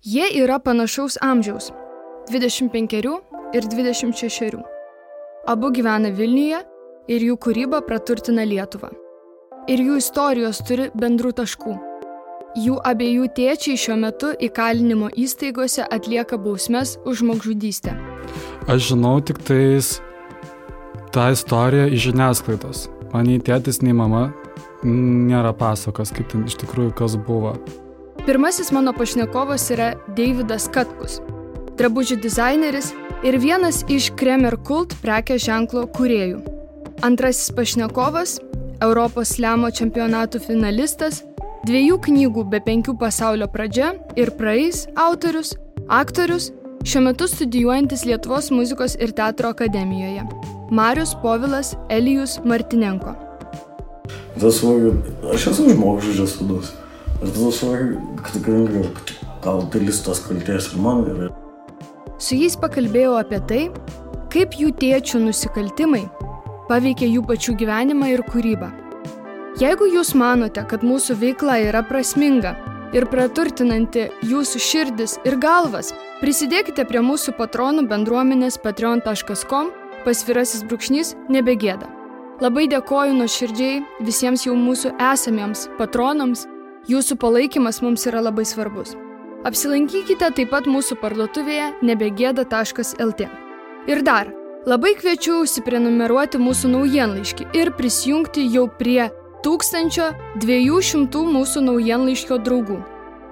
Jie yra panašaus amžiaus – 25 ir 26. Abu gyvena Vilniuje ir jų kūryba praturtina Lietuvą. Ir jų istorijos turi bendrų taškų. Jų abiejų tėčiai šiuo metu įkalinimo įstaigose atlieka bausmes už žmogžudystę. Aš žinau tik tais tą istoriją iš žiniasklaidos. Man nei tėtis, nei mama nėra pasakos, kaip ten iš tikrųjų kas buvo. Pirmasis mano pašnekovas yra Deividas Katkus, drabužių dizaineris ir vienas iš Kremer Kult prekės ženklo kūrėjų. Antrasis pašnekovas – Europos slemo čempionatų finalistas, 2 knygų be 5 pasaulio pradžia ir praeis autorius, aktorius, šiuo metu studijuojantis Lietuvos muzikos ir teatro akademijoje – Marius Povilas Elijus Martinenko. Aš esu žmogžudžio sūnus. Ir tada suvokiu, kad tikrai gal dalis tos kaltės ir man yra. Su jais pakalbėjau apie tai, kaip jų tėčių nusikaltimai paveikia jų pačių gyvenimą ir kūrybą. Jeigu jūs manote, kad mūsų veikla yra prasminga ir praturtinanti jūsų širdis ir galvas, prisidėkite prie mūsų patronų bendruomenės patreon.com/nebegėda. Labai dėkoju nuoširdžiai visiems jau mūsų esamiems patronams. Jūsų palaikymas mums yra labai svarbus. Apsilankykite taip pat mūsų parduotuvėje nebegėda.lt. Ir dar, labai kviečiu užsiprenumeruoti mūsų naujienlaiškį ir prisijungti jau prie 1200 mūsų naujienlaiškio draugų.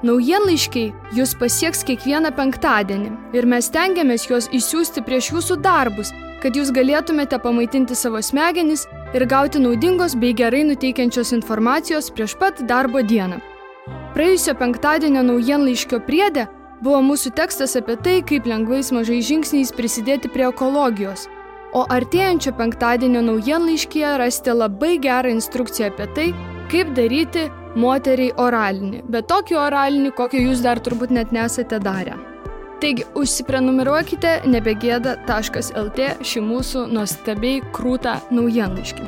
Naujienlaiškiai jūs pasieks kiekvieną penktadienį ir mes stengiamės juos išsiųsti prieš jūsų darbus, kad jūs galėtumėte pamaitinti savo smegenis ir gauti naudingos bei gerai nuteikiančios informacijos prieš pat darbo dieną. Praėjusio penktadienio naujienlaiškio priede buvo mūsų tekstas apie tai, kaip lengvais mažais žingsniais prisidėti prie ekologijos, o artėjančio penktadienio naujienlaiškyje rasite labai gerą instrukciją apie tai, kaip daryti moteriai oralinį, bet tokį oralinį, kokio jūs dar turbūt net nesate darę. Taigi, užsiprenumeruokite nebegėda.lt šį mūsų nuostabiai krūtą naujienlaiškį.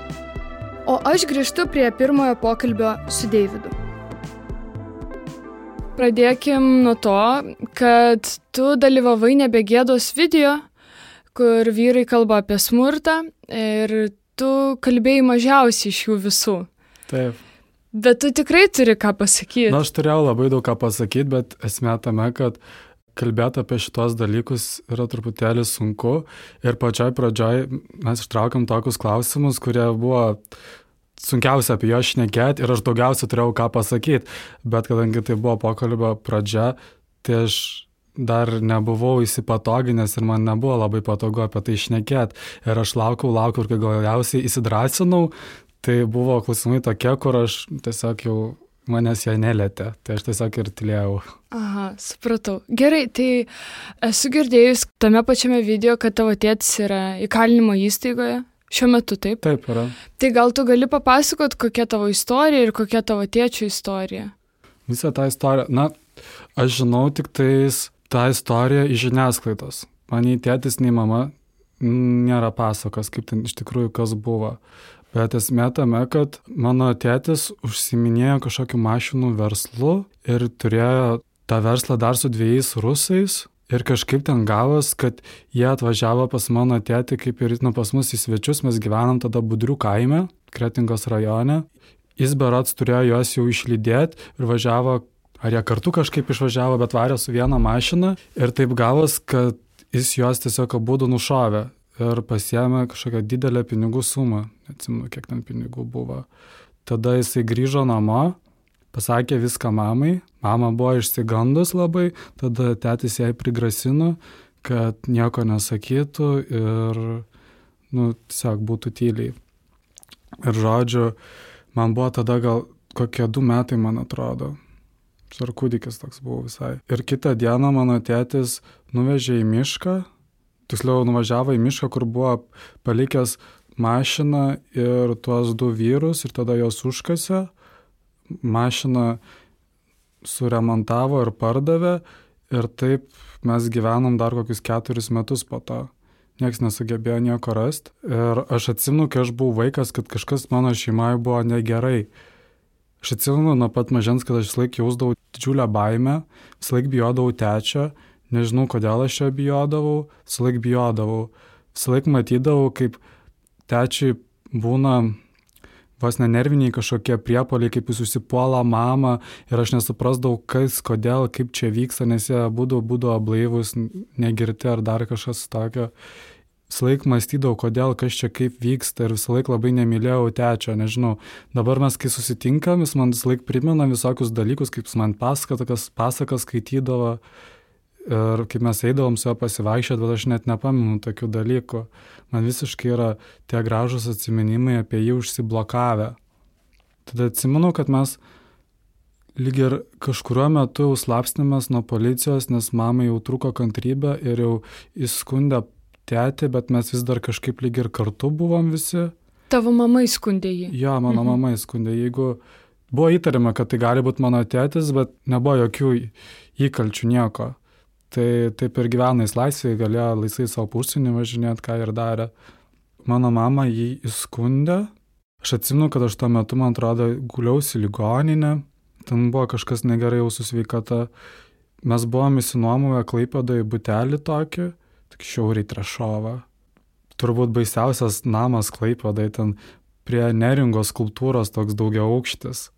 O aš grįžtu prie pirmojo pokalbio su Deividu. Pradėkim nuo to, kad tu dalyvavai Nebegėdos video, kur vyrai kalba apie smurtą ir tu kalbėjai mažiausiai iš jų visų. Taip. Bet tu tikrai turi ką pasakyti. Aš turėjau labai daug ką pasakyti, bet esmė tame, kad kalbėti apie šitos dalykus yra truputėlį sunku ir pačioj pradžioj mes ištraukėm tokius klausimus, kurie buvo sunkiausia apie juos šnekėti ir aš daugiausia turėjau ką pasakyti, bet kadangi tai buvo pokalbio pradžia, tai aš dar nebuvau įsipatoginęs ir man nebuvo labai patogu apie tai šnekėti ir aš laukiau ir kai galiausiai įsidrąsinau, tai buvo klausimai tokie, kur aš tiesiog jau manęs jie nelietė, tai aš tiesiog ir tylėjau. Aha, supratau. Gerai, tai esu girdėjus tame pačiame video, kad tavo tėtis yra įkalinimo įstaigoje. Šiuo metu, taip? Taip yra. Tai gal tu gali papasakot, kokia tavo istorija ir kokia tavo tėčio istorija? Visą tą istoriją, aš žinau tik tais tą istoriją iš žiniasklaidos. Man nei tėtis, nei mama nėra pasakos, kaip ten iš tikrųjų kas buvo. Bet esmė tame, kad mano tėtis užsiiminėjo kažkokiu mašinų verslu ir turėjo tą verslą dar su 2 rusais ir kažkaip ten gavos, kad jie atvažiavo pas mano tėtį kaip ir pas mus į svečius, mes gyvenam tada Budrių kaime, Kretingos rajone. Jis berods turėjo juos jau išlydėti ir važiavo, ar jie kartu kažkaip išvažiavo, bet varė su viena mašina ir taip gavos, kad jis juos tiesiog abudu nušovė. Ir pasiėmė kažkokią didelę pinigų sumą, neatsimenu, kiek ten pinigų buvo. Tada jisai grįžo namo, pasakė viską mamai, mama buvo išsigandus labai, tada tėtis jai prigrasino, kad nieko nesakytų ir, tiesiog būtų tyliai. Ir žodžiu, man buvo tada gal kokie 2 metai, man atrodo. Ar kūdikis toks buvo visai. Ir kitą dieną mano tėtis nuvežė į mišką, tiksliau nuvažiavo į mišką, kur buvo palikęs mašiną ir tuos 2 vyrus ir tada jos užkasė. Mašiną suremontavo ir pardavė ir taip mes gyvenom dar kokius 4 metus po to. Niekas nesugebėjo nieko rasti. Ir aš atsimenu, kai aš buvau vaikas, kad kažkas mano šeimoje buvo negerai. Aš atsimenu nuo pat mažens, kad aš visą laiką jausdavau didžiulę baimę, visą laiką bijodavau tečio, nežinau kodėl aš jo bijodavau, visą laiką bijodavau. Visą laiką matydavau, kaip tečiui būna vos nenerviniai kažkokie priepuoliai, kaip jis užsipuola mamą ir aš nesuprasdavau, kas, kodėl, kaip čia vyksta, nes jie būdavo blaivus, negirti ar dar kažkas tokio. Visą laiką mąstydavau, kodėl, kas čia kaip vyksta ir visą laiką labai nemylėjau tečio, nežinau. Dabar mes, kai susitinkam, jis man visą laiką primena visokius dalykus, kaip jis man pasakas skaitydavo ir kaip mes eidavom su juo pasivaikščioti, bet aš net nepamenu tokių dalykų. Man visiškai yra tie gražūs atsiminimai apie jį užsiblokavę. Tada atsimenu, kad mes lyg ir kažkuriuo metu jau slapstėmės nuo policijos, nes mamai jau trūko kantrybė ir jau įskundė tėtį, bet mes vis dar kažkaip lyg ir kartu buvom visi. Tavo mama įskundė jį? Jo, mano mama įskundė. Jeigu buvo įtariama, kad tai gali būti mano tėtis, bet nebuvo jokių įkalčių nieko. Tai taip ir gyvena jis laisvėje, galėjo laisvai savo užsienį važinėti, ką ir darė. Mano mama jį įskundė. Aš atsimenu, kad aš tuo metu, man atrodo, guliausi ligoninę. Ten buvo kažkas negerai jau su sveikata. Mes buvom įsinuomovę Klaipėdoje butelį tokį, tik šiauriai Trešovą. Turbūt baisiausias namas Klaipėdoje, ten prie Neringos skulptūros toks daugiaaukštis.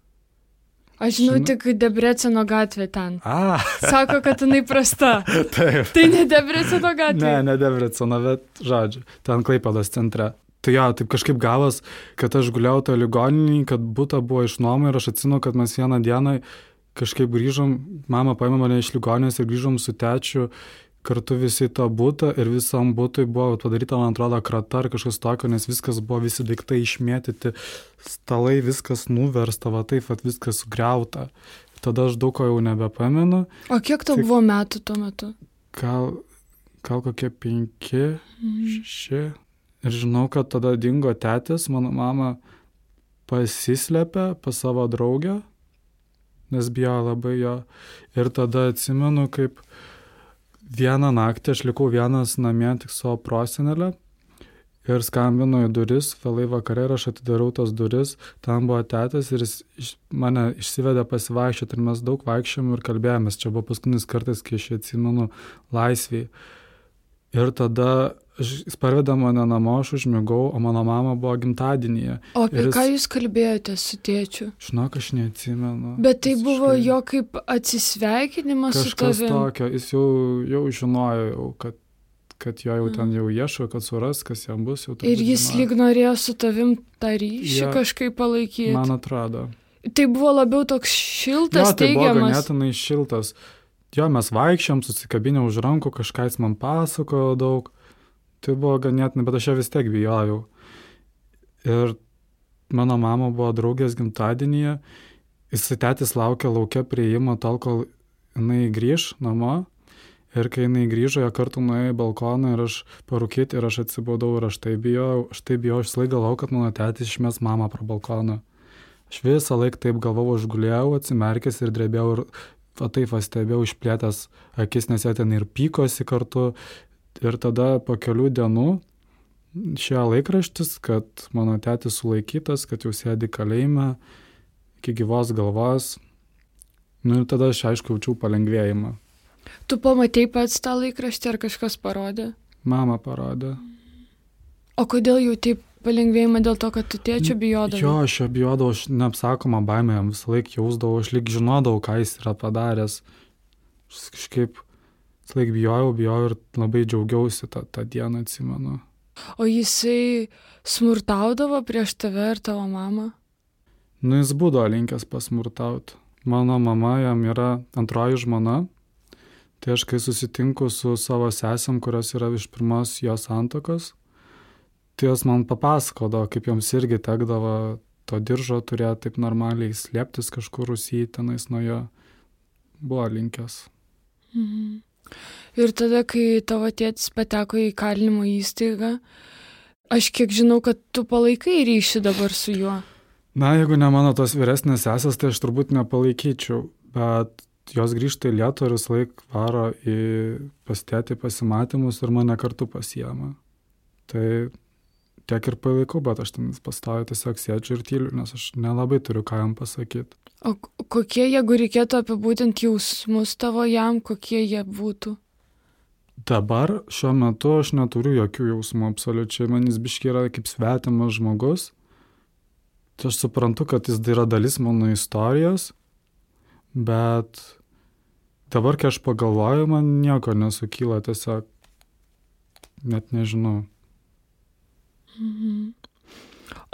Aš žinau tik Debreceno gatvė ten. Sako, kad jinai prasta. Taip. Tai ne Debreceno gatvė? Ne Debreceno, bet žodžiu, ten Klaipėdos centre. Tai jo, taip kažkaip gavos, kad aš guliau tą ligoninį, kad butą buvo išnuoma ir aš atsimenu, kad mes vieną dieną kažkaip grįžom, mama paėmė mane iš ligoninės ir grįžom su tečiu kartu visi tą butą ir visam butui buvo padaryta, man atrodo, krata ar kažkas tokio, nes viskas buvo, visi daiktai išmėtyti, stalai, viskas nuversta, va taip, va viskas sugriauta. Tada aš daug ko jau nebepamenu. O kiek tau buvo metų tuo metu? Gal kokie 5, 6. Ir žinau, kad tada dingo tėtis, mano mama pasislėpė pas savo draugę, nes bijo labai jo. Ir tada atsimenu, kaip vieną naktį aš likau vienas namie tik savo prosenelę ir skambino į duris, vėlai vakare ir aš atidarau tas duris, ten buvo tėtas ir jis mane išsivedė pasivaikščioti ir mes daug vaikščiom ir kalbėjomės, čia buvo paskutinis kartas, kai aš atsimenu laisviai. Ir tada jis parvedė mane namo, aš užmigau, o mano mama buvo gimtadienyje. O apie ką jūs kalbėjote su tėčiu? Žinok, aš neatsimenu. Bet tai buvo jo kaip atsisveikinimas su tavim? Kažkas tokio, jis jau žinojo, kad jo jau ten jau ieško, kad suras, kas jam bus. Jau ir jis lyg norėjo su tavim tą ryšį kažkaip palaikyti? Man atrodo. Tai buvo labiau toks šiltas, tai teigiamas? Buvo ganėtinai šiltas. Jo, mes vaikščiom, susikabinę už rankų, kažką jis man pasakojo daug. Tai buvo ganėtinai, bet aš ją vis tiek bijojau. Ir mano mama buvo draugės gimtadienyje. Tėtis laukė laukia prieimo tol, kol jinai grįž namo. Ir kai jinai grįžo, jie kartu nuėjo į balkoną ir aš parūkyti ir aš atsibūdau ir aš tai bijojau. Aš visą laiką galvojau, kad mano tėtis išmes mamą pro balkoną. Aš visą laiką taip galvojau, aš gulėjau, atsimerkęs ir drebėjau ir taip stebėjau išplėtęs akis, nes jie ten ir pykosi kartu. Ir tada po kelių dienų išėjo laikraštis, kad mano tėtis sulaikytas, kad jau sėdi kalėjime iki gyvos galvos. Ir tada aš aišku jaučiau palengvėjimą. Tu pamatei pats tą laikraštį ar kažkas parodė? Mama parodė. O kodėl jauti palengvėjimą dėl to, kad tu tėčio bijodavai? Jo, aš jo bijodavau, aš neapsakomą baimę jam visą laiką jausdavau, aš lyg žinodavau, ką jis yra padaręs. Aš kažkaip visą laiką bijojau ir labai džiaugiausi tą dieną, atsimenu. O jisai smurtaudavo prieš tave ir tavo mamą? Jis būdavo linkęs pasmurtauti. Mano mama jam yra antroji žmona. Tai aš kai susitinku su savo sesėm, kurios yra iš pirmos jos santuokos, tai jos man papasakodavo, kaip joms irgi tekdavo to diržo turėti taip normaliai slėptis kažkur Rusijai tenais nuo jo. Buvo linkęs. Mhm. Ir tada, kai tavo tėtis pateko į kalinimo įstaigą, aš kiek žinau, kad tu palaikai ryšį dabar su juo. Na, jeigu ne mano tos vyresnės sesės, tai aš turbūt nepalaikyčiau, bet jos grįžta į Lietuvą ir visą laiką varo pas tėtį pasimatymus ir mane kartu pasiema. Tai tiek ir palaikau, bet aš ten pastoviai tiesiog sėdžiu ir tyliu, nes aš nelabai turiu ką jam pasakyti. O kokie, jeigu reikėtų apibūdinti jausmus tavo jam, kokie jie būtų? Dabar šiuo metu aš neturiu jokių jausmų absoliučiai, man jis biškiai yra kaip svetimas žmogus. Tai aš suprantu, kad jis yra dalis mano istorijos, bet dabar, kai aš pagalvoju, man nieko nesukyla, tiesiog net nežinau. Mhm.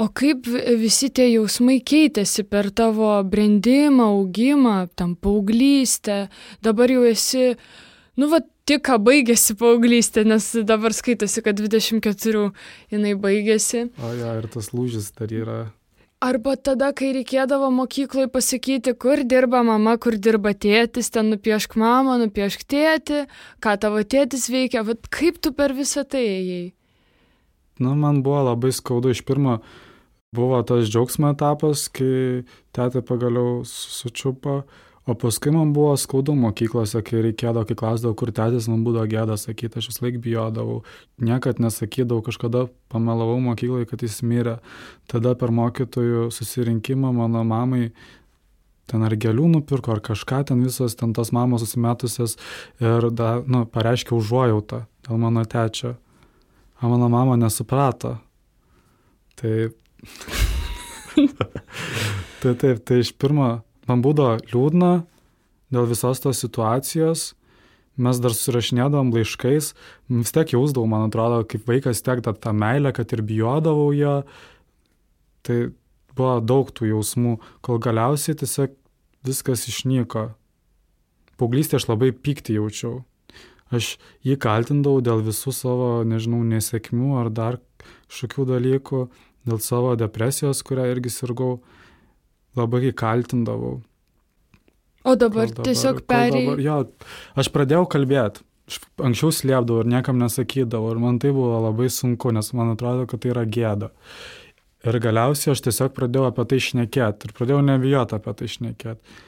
O kaip visi tie jausmai keitėsi per tavo brendimą, augimą, tam paauglystę? Dabar jau esi, tik ką baigėsi paauglystė, nes dabar skaitosi, kad 24 jinai baigėsi. O ja, ir tas lūžis dar yra. Arba tada, kai reikėdavo mokykloje pasakyti, kur dirba mama, kur dirba tėtis, ten nupiešk mamą, nupiešk tėtį, ką tavo tėtis veikia, kaip tu per visą tai ėjai? Man buvo labai skaudu. Iš pirmo buvo tas džiaugsmo etapas, kai tėtė pagaliau sučiupo, o paskui man buvo skaudu mokyklose, kai reikėdavo, kai klausdavau, kur tėtis, man būdavo gėda sakyti, aš vis laik bijodavau, niekad nesakydavau, kažkada pamelavau mokyklai, kad jis mirė. Tada per mokytojų susirinkimą mano mamai ten ar gėlių nupirko, ar kažką, ten visos ten tos mamos susimetusios ir pareiškė užuojautą dėl mano tėčio. O mano mama nesuprato. Tai iš pirmo man būdavo liūdna dėl visos tos situacijos. Mes dar susirašinėdavom laiškais, vis tiek jausdavau, man atrodo, kaip vaikas tiek tą meilę, kad ir bijodavau ją. Tai buvo daug tų jausmų, kol galiausiai tiesiog viskas išnyko. Paauglystėje aš labai pyktį jaučiau. Aš jį kaltindavau dėl visų savo, nesėkmių ar dar kažkokių dalykų, dėl savo depresijos, kurią irgi sirgau, labai jį kaltindavau. O dabar tiesiog Jo, aš pradėjau kalbėti. Anksčiau slėpdavau ir niekam nesakydavau ir man tai buvo labai sunku, nes man atrodo, kad tai yra gėda. Ir galiausiai aš tiesiog pradėjau apie tai šnekėti ir pradėjau nebijoti apie tai šnekėti.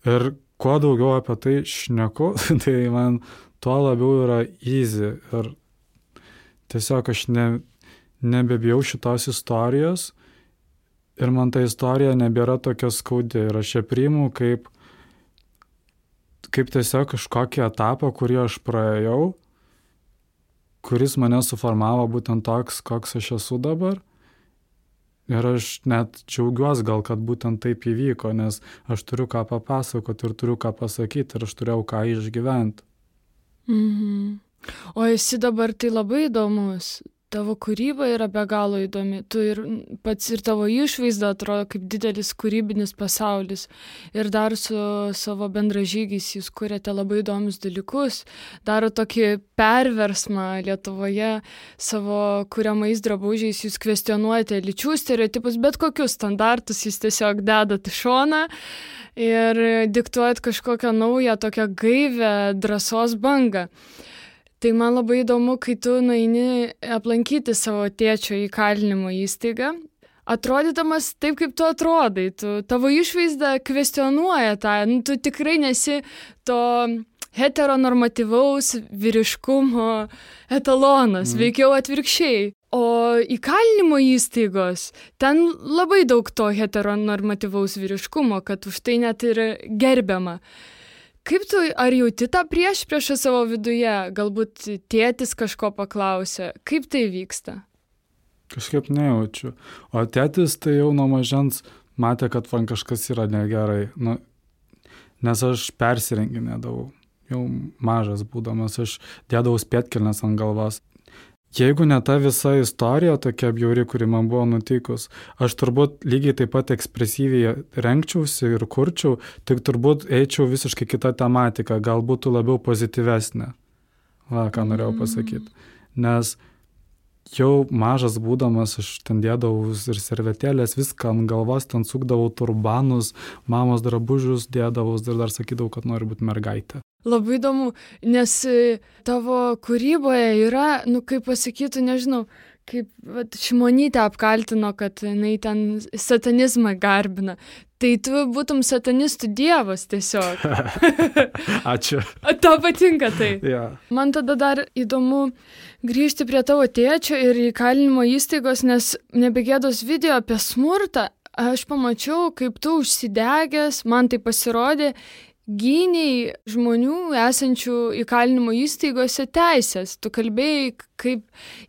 Ir kuo daugiau apie tai šneku, tai man tuo labiau yra easy ir tiesiog aš nebebijau šitos istorijos ir man ta istorija nebėra tokia skaudi ir aš ją priimu kaip tiesiog kažkokį etapą, kurį aš praėjau, kuris mane suformavo būtent toks, koks aš esu dabar. Ir aš net džiaugiuosi gal, kad būtent taip įvyko, nes aš turiu ką papasakoti ir turiu ką pasakyti ir aš turėjau ką išgyventi. Mhm. O esi dabar tai labai įdomus. Tavo kūryba yra be galo įdomi. Tu ir pats ir tavo išvaizda atrodo kaip didelis kūrybinis pasaulis. Ir dar su savo bendražygiais jūs kuriate labai įdomius dalykus. Daro tokį perversmą Lietuvoje savo kuriamais drabužiais. Jūs kvestionuojate lyčių stereotipus, bet kokius standartus jūs tiesiog dedat į šoną ir diktuojat kažkokią naują, tokią gaivę drąsos bangą. Tai man labai įdomu, kai tu nueini aplankyti savo tėčio įkalinimo įstaigą, atrodydamas taip, kaip tu atrodai, tavo išvaizda kvestionuoja tą, tu tikrai nesi to heteronormatyvaus vyriškumo etalonas, veikiau atvirkščiai. O įkalinimo įstaigos, ten labai daug to heteronormatyvaus vyriškumo, kad už tai net ir gerbiama. Kaip tu, ar jauti tą priešpriešą savo viduje? Galbūt tėtis kažko paklausė. Kaip tai vyksta? Kažkaip nejaučiu. O tėtis tai jau nuo mažens matė, kad man kažkas yra negerai. Nes aš persirenginėdavau. Jau mažas būdamas, aš dėdavau spėtkelnes ant galvos. Jeigu ne ta visa istorija tokia bjauri, kuri man buvo nutikus, aš turbūt lygiai taip pat ekspresyviai rengčiausi ir kurčiau, tik turbūt eičiau visiškai kitą tematiką, gal būtų labiau pozityvesnė. Ką norėjau pasakyti. Nes jau mažas būdamas, aš ten dėdavau ir servetėlės, viską ant galvos, ten sukdavau turbanus, mamos drabužius dėdavau ir dar sakydavau, kad noriu būti mergaitė. Labai įdomu, nes tavo kūryboje yra, kaip pasakytų, nežinau, kaip Šimonytė apkaltino, kad jinai ten satanizmą garbina. Tai tu būtum satanistų dievas tiesiog. Ačiū. Tau patinka tai. Yeah. Man tada dar įdomu grįžti prie tavo tėčio ir įkalinimo įstaigos, nes Nebegėdos video apie smurtą aš pamačiau, kaip tu užsidegęs, man tai pasirodė, gyniai žmonių esančių įkalinimo įstaigose teisės. Tu kalbėjai, kaip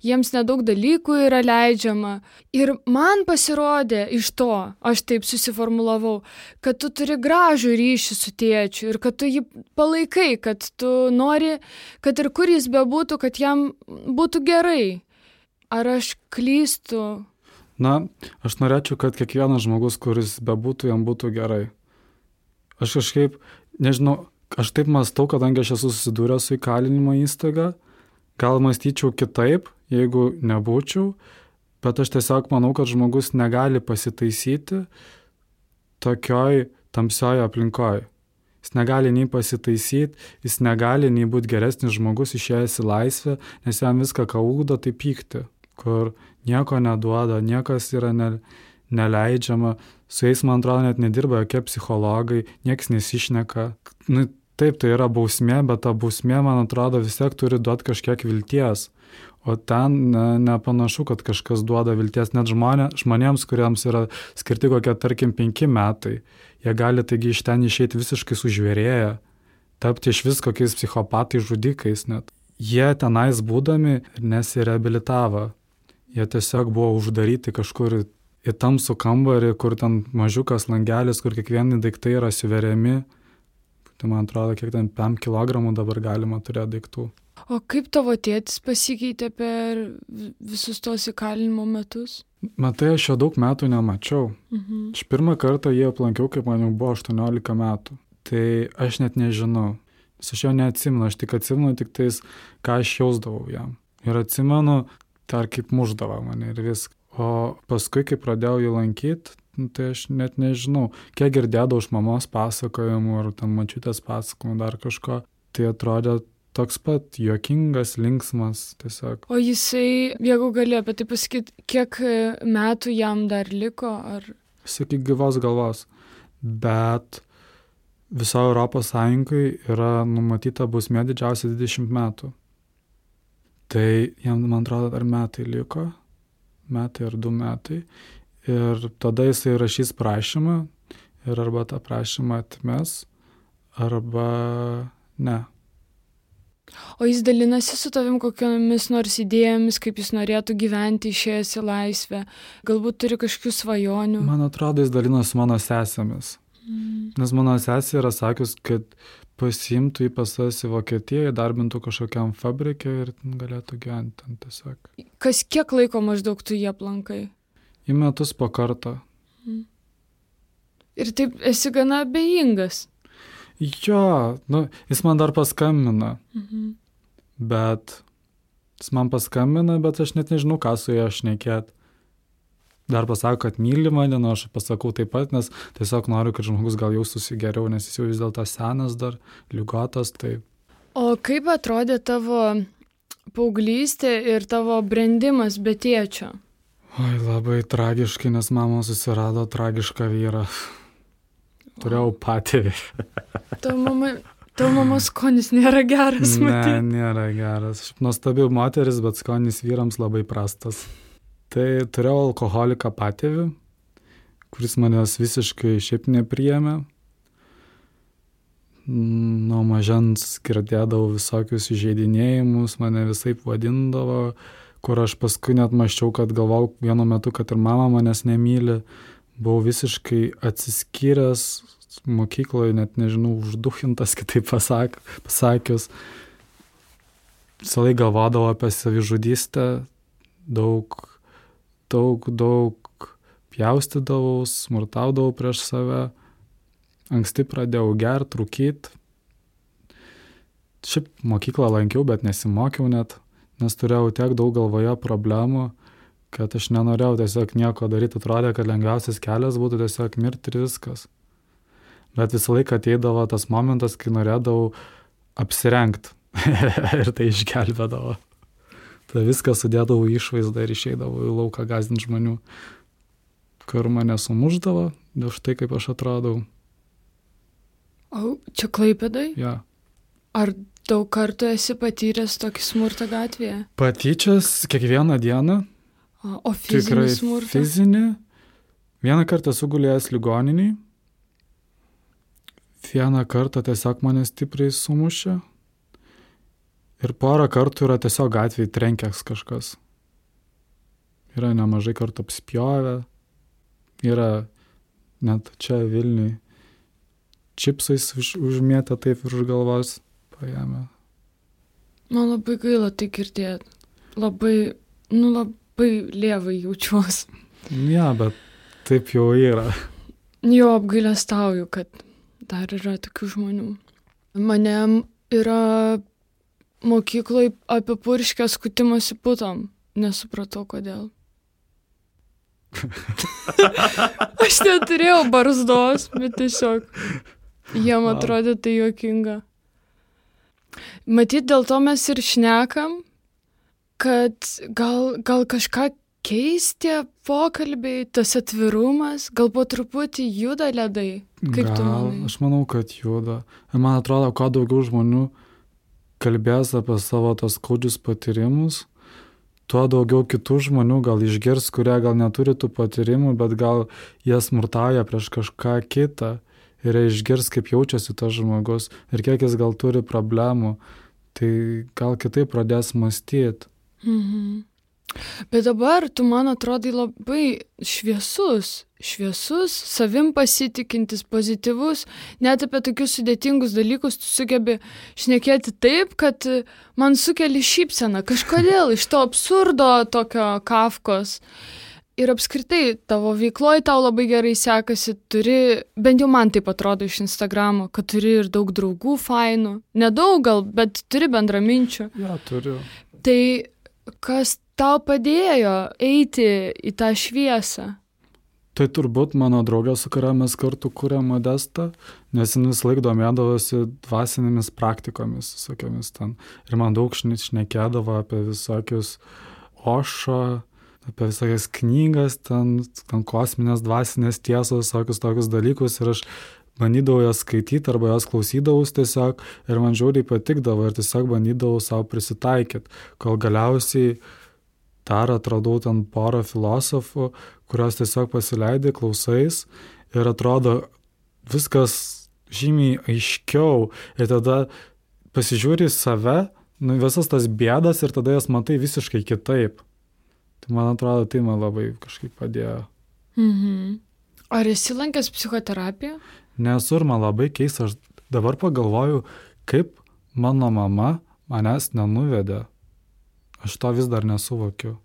jiems nedaug dalykų yra leidžiama. Ir man pasirodė iš to, aš taip susiformulavau, kad tu turi gražų ryšį su tėčiu ir kad tu jį palaikai, kad tu nori, kad ir kur jis bebūtų, kad jam būtų gerai. Ar aš klystu? Na, aš norėčiau, kad kiekvienas žmogus, kuris bebūtų, jam būtų gerai. Aš kažkaip, nežinau, aš taip mąstau, kadangi aš esu susidūręs su įkalinimo įstaiga, gal mąstyčiau kitaip, jeigu nebūčiau, bet aš tiesiog manau, kad žmogus negali pasitaisyti tokioj tamsioj aplinkoj. Jis negali nei pasitaisyti, jis negali nei būti geresnis žmogus išėjęs į laisvę, nes jam viską, ką ugdo, tai pykti, kur nieko neduoda, niekas yra neleidžiama. Su jais, man atrodo, net nedirba jokie psichologai, nieks nesišneka. Nu, taip, tai yra bausmė, bet ta bausmė, man atrodo, vis tiek turi duoti kažkiek vilties. O ten nepanašu, kad kažkas duoda vilties. Net žmonėms, kuriems yra skirti kokie, tarkim, 5 metai, jie gali taigi iš ten išeiti visiškai sužvėrėję, tapti iš vis kokiais psichopatais, žudikais net. Jie tenais būdami nesireabilitavo. Jie tiesiog buvo uždaryti kažkur į tamsų kambarį, kur ten mažiukas langelis, kur kiekvieni daiktai yra suveriami. Tai man atrodo, kiek ten 5 kilogramų dabar galima turėti daiktų. O kaip tavo tėtis pasikeitė per visus tos įkalinimo metus? Matai, aš jo daug metų nemačiau. Aš pirmą kartą jį aplankiau, kaip man jau buvo 18 metų. Tai aš net nežinau. Aš jo neatsimenu, aš tik atsimenu tik tais, ką aš jausdavau jam. Ir atsimenu, tai kaip muždavo mane ir viską. O paskui, kai pradėjau jį lankyti, tai aš net nežinau, kiek girdėdavau iš mamos pasakojimų ar ten mačiutės pasakojimų dar kažko, tai atrodė toks pat juokingas, linksmas tiesiog. O jisai, jeigu gali apie tai pasakyti, kiek metų jam dar liko? Ar... Sakyk, gyvos galvos. Bet viso Europos Sąjungai yra numatyta bausmė didžiausia 20 metų. Tai jam, man atrodo, dar metai liko. Metai ar 2 metai. Ir tada jisai rašys prašymą ir arba tą prašymą atmes, arba ne. O jis dalinasi su tavim kokiomis nors idėjomis, kaip jis norėtų gyventi išėjęs į laisvę? Galbūt turi kažkokių svajonių? Man atrodo, jis dalinasi su mano sesėmis. Nes mano sesė yra sakius, kad pasiimtų į pasas į Vokietiją, darbintų kažkokiam fabrike ir galėtų gyventi ten tiesiog. Kas kiek laiko maždaug tu jį aplankai? Į metus po kartą. Ir taip esi gana abejingas. Jo, jis man dar paskambina. Bet jis man paskambina, bet aš net nežinau, ką su juo šnekėt. Dar pasako, kad myli mane, aš pasakau taip pat, nes tiesiog noriu, kad žmogus gal jaustųsi geriau, nes jis jau vis dėlto senas dar, ligotas. Tai... O kaip atrodė tavo paauglystė ir tavo brendimas be tėčio? Oi, labai tragiškai, nes mama susirado tragišką vyrą. Turėjau patėvį. Tavo mamos skonis nėra geras, matyti. Ne, nėra geras. Šiaip nuostabi moteris, bet skonis vyrams labai prastas. Tai turėjau alkoholiką patėvį, kuris manęs visiškai šiaip nepriėmė. Nuo mažens girdėdavau visokius įžeidinėjimus, mane visaip vadindavo, kur aš paskui net mąsčiau, kad galvau vienu metu, kad ir mama manęs nemyli. Buvau visiškai atsiskyręs mokykloje, net nežinau, užduchintas, kitaip pasakius. Visą laiką galvodavau apie savižudystę, daug pjaustydavau, smurtaudavau prieš save. Anksti pradėjau gert, rūkyt. Šiaip mokyklą lankiau, bet nesimokiau net, nes turėjau tiek daug galvoje problemų, kad aš nenorėjau tiesiog nieko daryti. Atrodė, kad lengviausias kelias būtų tiesiog mirti ir viskas. Bet visą laiką ateidavo tas momentas, kai norėdavau apsirengti ir tai išgelbėdavo. Tai viską sudėdavau išvaizdą ir išeidavau į lauką gąsdinti žmonių, kur mane sumuždavo, dėl štai kaip aš atrodau. O čia Klaipėdai? Ja. Ar daug kartų esi patyręs tokį smurtą gatvėje? Patyčias kiekvieną dieną. O fizinį smurtą? Fizinį. Vieną kartą esu gulėjęs ligoniniai. Vieną kartą tiesiog mane stipriai sumušė. Ir porą kartų yra tiesiog gatvėje trenkęs kažkas. Yra nemažai kartų apspjovę. Yra net čia Vilniui čipsais užmėtę taip virš galvos paėmė. Man labai gaila tai girdėti. Labai lievai jaučiuosi. Ja, bet taip jau yra. Jo, apgailestauju, kad dar yra tokių žmonių. Mane yra mokykloje apipurškę skutimosi putom. Nesupratau, kodėl. Aš neturėjau barzdos, bet tiesiog jiem atrodė tai juokinga. Matyt, dėl to mes ir šnekam, kad gal kažką keisti pokalbiai, tas atvirumas, gal po truputį juda ledai. Kaip tu manai? Aš manau, kad juda. Ir man atrodo, kuo daugiau žmonių kalbės apie savo tos skaudžius patyrimus, tuo daugiau kitų žmonių gal išgirs, kurie gal neturi tų patyrimų, bet gal jie smurtauja prieš kažką kitą ir išgirs, kaip jaučiasi tas žmogus ir kiek jis gal turi problemų, tai gal kitaip pradės mąstyti. Mhm. Bet dabar tu man atrodai labai šviesus, savim pasitikintis, pozityvus, net apie tokius sudėtingus dalykus tu sugebi šnekėti taip, kad man sukeli šypseną, kažkodėl iš to absurdo tokio Kafkos. Ir apskritai tavo veikloje tau labai gerai sekasi, turi, bent jau man taip atrodo iš Instagramo, kad turi ir daug draugų fainų, nedaug gal, bet turi bendraminčių. Ja, turiu. Tai kas tau padėjo eiti į tą šviesą? Tai turbūt mano draugė, su kuria mes kartu kūrėm Modestą, nes jis laik domėdavosi dvasinėmis praktikomis, visokiamis ten. Ir man daug šnekėdavo apie visokius Ošo, apie visokias knygas, ten kosminės dvasinės tiesos, visokius tokius dalykus. Ir aš bandydavau jas skaityti arba jas klausydavus tiesiog ir man žiauriai patikdavo ir tiesiog bandydavau savo prisitaikyti, kol galiausiai dar atradau ten porą filosofų, kurios tiesiog pasileidai, klausais ir atrodo viskas žymiai aiškiau ir tada pasižiūri save, visas tas bėdas ir tada jas matai visiškai kitaip. Tai man atrodo, tai man labai kažkaip padėjo. Mhm. Ar esi lankęs psichoterapiją? Nesu ir man labai keista, aš dabar pagalvoju, kaip mano mama manęs nenuvedė. Aš to vis dar nesuvokiu.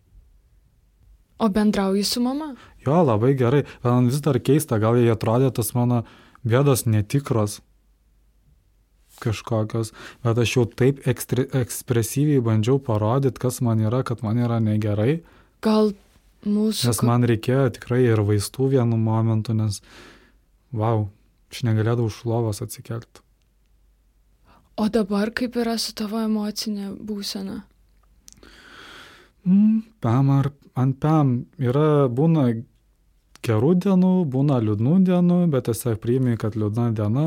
O bendrauji su mama? Jo, labai gerai. Man vis dar keista, gal jie atrodė tas mano bėdos netikros kažkokios, bet aš jau taip ekspresyviai bandžiau parodyti, kas man yra, kad man yra negerai. Gal mūsų... Nes man reikėjo tikrai ir vaistų vienu momentu, nes, aš negalėdavau iš lovos atsikelti. O dabar kaip yra su tavo emocinė būsena? Būna gerų dienų, būna liūdnų dienų, bet tiesiog priimi, kad liūdna diena,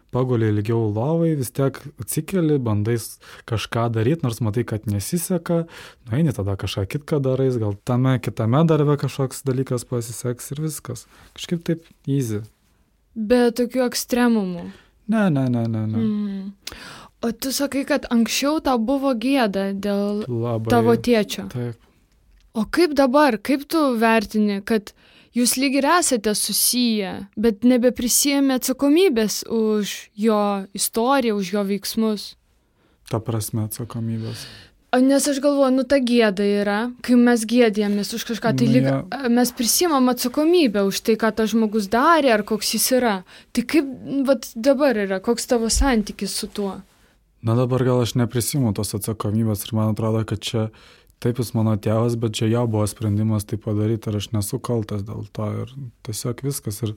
paguli ilgiau lovai, vis tiek atsikeli, bandai kažką daryti, nors matai, kad nesiseka, nueini tada kažką kitką darais, gal kitame darbe kažkoks dalykas pasiseks ir viskas. Kažkaip taip easy. Be tokių ekstremumų? Ne. O tu sakai, kad anksčiau tau buvo gėda dėl tavo tėčio. Taip. O kaip dabar, kaip tu vertini, kad jūs lyg ir esate susiję, bet nebeprisijėmė atsakomybės už jo istoriją, už jo veiksmus? Ta prasme atsakomybės. Nes aš galvoju, ta gėda yra, kai mes gėdėjomės už kažką, tai lyg mes prisimam atsakomybę už tai, ką tas žmogus darė ar koks jis yra. Tai kaip dabar yra, koks tavo santykis su tuo? Dabar gal aš neprisimu tos atsakomybės ir man atrodo, kad čia taip jis mano tėvas, bet čia jo buvo sprendimas tai padaryti ir aš nesu kaltas dėl to ir tiesiog viskas ir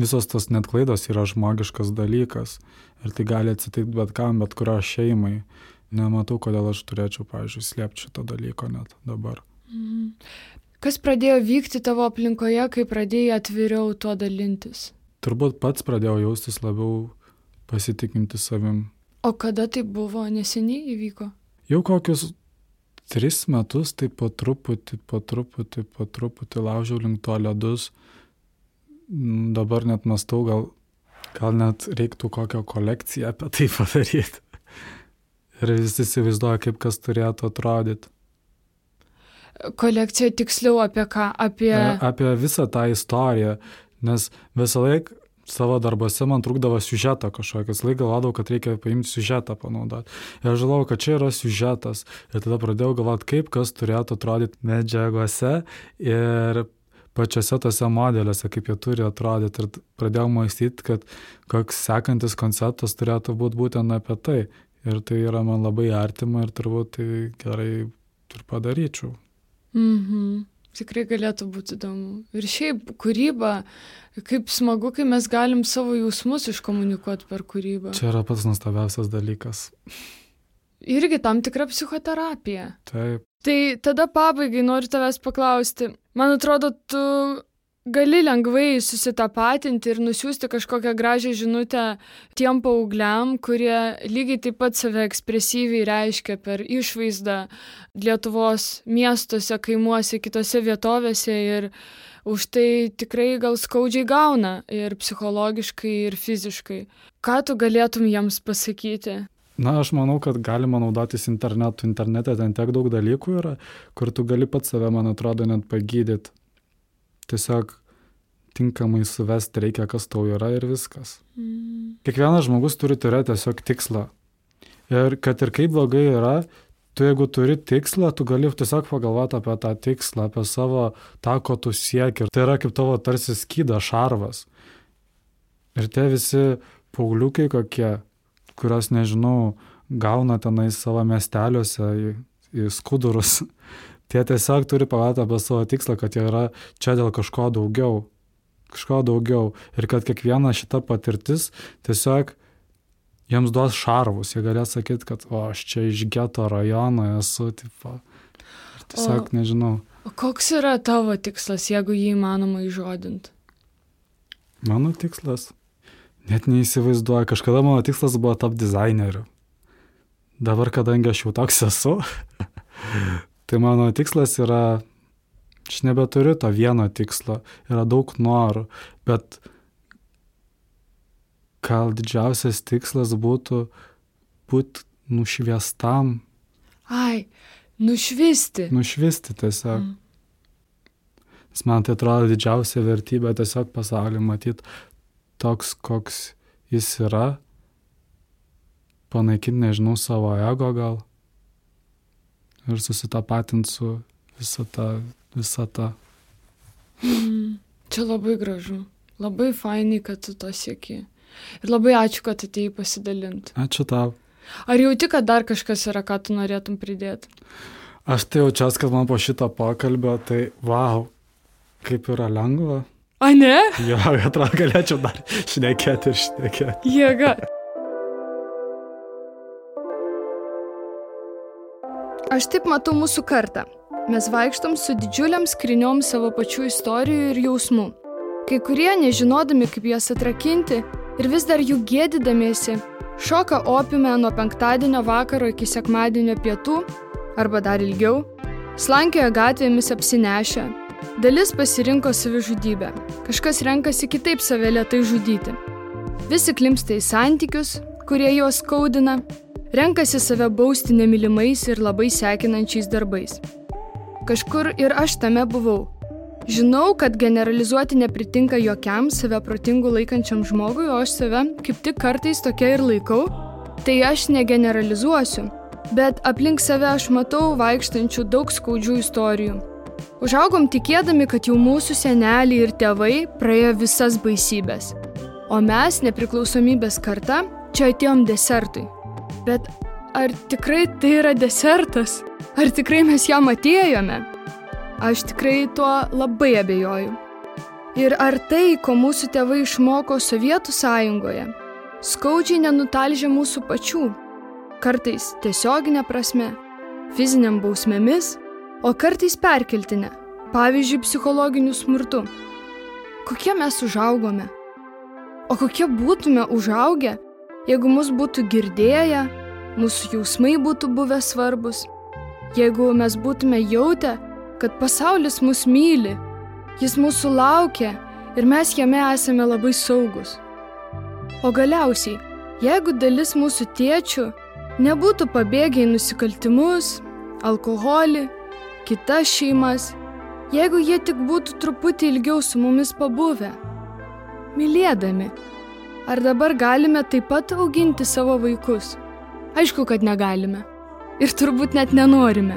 visos tos net klaidos yra žmogiškas dalykas ir tai gali atsitikti bet kam, bet kurio šeimai. Nematau, kodėl aš turėčiau, pavyzdžiui, slėpti šito dalyko net dabar. Kas pradėjo vykti tavo aplinkoje, kai pradėjai atviriau tuo dalintis? Turbūt pats pradėjau jaustis labiau pasitikinti savim. O kada tai buvo? Neseniai įvyko? Jau kokius 3 metus, tai po truputį laužiau link to ledus. Dabar net mąstau, gal net reiktų kokią kolekciją apie tai padaryti. Ir visi įsivaizduoja, kaip kas turėtų atrodyti. Kolekcija tiksliau apie ką? Apie visą tą istoriją, nes visą laiką savo darbuose man trūkdavo siužetą kažkokias. Laik galvodavau, kad reikia paimti siužetą panaudoti. Ir aš žinau, kad čia yra siužetas. Ir tada pradėjau galvoti, kaip kas turėtų atrodyti medžiagose ir pačiose tose modeliuose, kaip jie turi atrodyti. Ir pradėjau mąstyti, kad koks sekantis konceptas turėtų būti būtent apie tai. Ir tai yra man labai artima ir turbūt tai gerai ir padaryčiau. Tikrai galėtų būti įdomu. Ir šiaip kūryba, kaip smagu, kai mes galim savo jausmus iškomunikuoti per kūrybą. Čia yra pats nuostabiausias dalykas. Irgi tam tikra psichoterapija. Taip. Tai tada pabaigai noriu tavęs paklausti. Man atrodo, tu gali lengvai susitapatinti ir nusiųsti kažkokią gražią žinutę tiem paaugliam, kurie lygiai taip pat save ekspresyviai reiškia per išvaizdą Lietuvos miestuose, kaimuose, kitose vietovėse ir už tai tikrai gal skaudžiai gauna ir psichologiškai, ir fiziškai. Ką tu galėtum jiems pasakyti? Na, aš manau, kad galima naudotis internetu. Internete ten tiek daug dalykų yra, kur tu gali pats save, man atrodo, net pagydyti. Tiesiog tinkamai suvesti reikia, kas tau yra ir viskas. Kiekvienas žmogus turi turėti tiesiog tikslą. Ir kad ir kaip blogai yra, tu jeigu turi tikslą, tu gali tiesiog pagalvoti apie tą tikslą, apie savo tą, ko tu sieki. Ir tai yra kaip tavo tarsi skydas, šarvas. Ir tie visi pauliukai kokie, kurios, nežinau, gauna tenai savo miesteliuose į skudurus. Tie tiesiog turi pagalvoti apie savo tikslą, kad jie yra čia dėl kažko daugiau. Ir kad kiekviena šita patirtis tiesiog jiems duos šarvus. Jie galės sakyti, kad aš čia iš geto rajono esu. Tipo. Ir tiesiog nežinau. O koks yra tavo tikslas, jeigu jį įmanoma įžodinti? Mano tikslas? Net neįsivaizduoju. Kažkada mano tikslas buvo tapti dizaineriu. Dabar, kadangi aš jau toks esu, tai mano tikslas yra, aš nebeturiu to vieno tikslo, yra daug norų, bet gal didžiausias tikslas būtų būti nušviestam. Nušvisti. Nušvisti tiesiog. Nes man tai atrodo didžiausia vertybė tiesiog pasaulį matyti toks, koks jis yra, panaikinti, nežinau, savo ego gal. Ir susitapatinti su visą tą. Čia labai gražu. Labai fainai, kad tu to sieki. Ir labai ačiū, kad atėjai pasidalinti. Ačiū tau. Ar jauti, kad dar kažkas yra, ką tu norėtum pridėti? Aš tai jaučiuos, kad man po šito pokalbio, tai kaip yra lengva. A, ne? Jo, atrodo, galėčiau dar šnekėti. Jėga. Aš taip matau mūsų kartą. Mes vaikštom su didžiuliam skryniom savo pačių istorijų ir jausmų. Kai kurie, nežinodami, kaip jas atrakinti ir vis dar jų gėdydamiesi, šoka opiume nuo penktadienio vakaro iki sekmadienio pietų, arba dar ilgiau, slankioja gatvėmis apsinešę. Dalis pasirinko savižudybę. Kažkas renkasi kitaip save lėtai žudyti. Visi klimpsta į santykius, kurie juos skaudina. Renkasi save bausti nemylimais ir labai sekinančiais darbais. Kažkur ir aš tame buvau. Žinau, kad generalizuoti nepritinka jokiam save protingu laikančiam žmogui, o aš save kaip tik kartais tokia ir laikau, tai aš negeneralizuosiu. Bet aplink save aš matau vaikštančių daug skaudžių istorijų. Užaugom tikėdami, kad jau mūsų seneliai ir tėvai praėjo visas baisybės. O mes, nepriklausomybės karta, čia atėjom desertui. Bet ar tikrai tai yra desertas? Ar tikrai mes jam atėjome? Aš tikrai tuo labai abejoju. Ir ar tai, ko mūsų tėvai išmoko Sovietų sąjungoje, skaudžiai nenutalžė mūsų pačių? kartais tiesioginė prasme, fiziniam bausmėmis, o kartais perkeltinė, pavyzdžiui, psichologiniu smurtu. Kokie mes užaugome? O kokie būtume užaugę, jeigu mus būtų girdėję, mūsų jausmai būtų buvę svarbus, jeigu mes būtume jautę, kad pasaulis mus myli, jis mūsų laukia ir mes jame esame labai saugus. O galiausiai, jeigu dalis mūsų tėčių nebūtų pabėgę į nusikaltimus, alkoholį, kitas šeimas, jeigu jie tik būtų truputį ilgiau su mumis pabuvę, mylėdami, ar dabar galime taip pat auginti savo vaikus? Aišku, kad negalime. Ir turbūt net nenorime.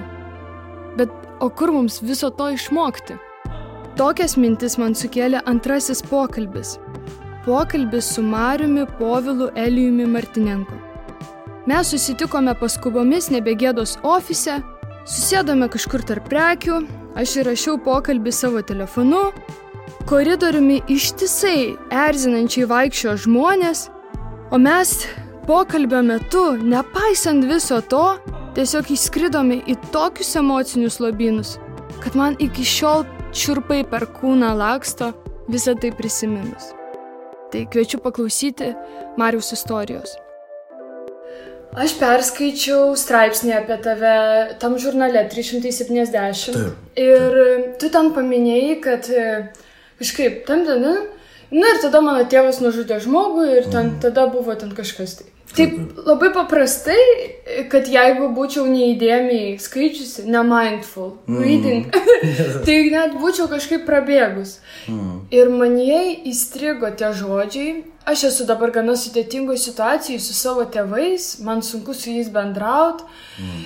Bet o kur mums viso to išmokti? Tokias mintis man sukėlė antrasis pokalbis. Pokalbis su Mariumi Povilu Elijumi Martinenko. Mes susitikome paskubomis Nebegėdos ofise, susėdome kažkur tarp prekių, aš įrašiau pokalbį savo telefonu, koridoriumi ištisai erzinančiai vaikščiojo žmonės, o mes pokalbio metu, nepaisant viso to, tiesiog įskridome į tokius emocinius lobynus, kad man iki šiol čiurpai per kūną laksto visą tai prisiminus. Tai kviečiu paklausyti Mariaus istorijos. Aš perskaičiau straipsnį apie tave tam žurnale 370. Ir tu ten paminėjai, kad kažkaip ir tada mano tėvas nužudė žmogų ir tada buvo ten kažkas tai. Taip labai paprastai, kad jeigu būčiau neįdėmiai skaičiusi, ne mindful reading, tai net būčiau kažkaip prabėgus. Ir manyje įstrigo tie žodžiai. Aš esu dabar gana sudėtingoje situacijoje su savo tėvais, man sunku su jais bendrauti.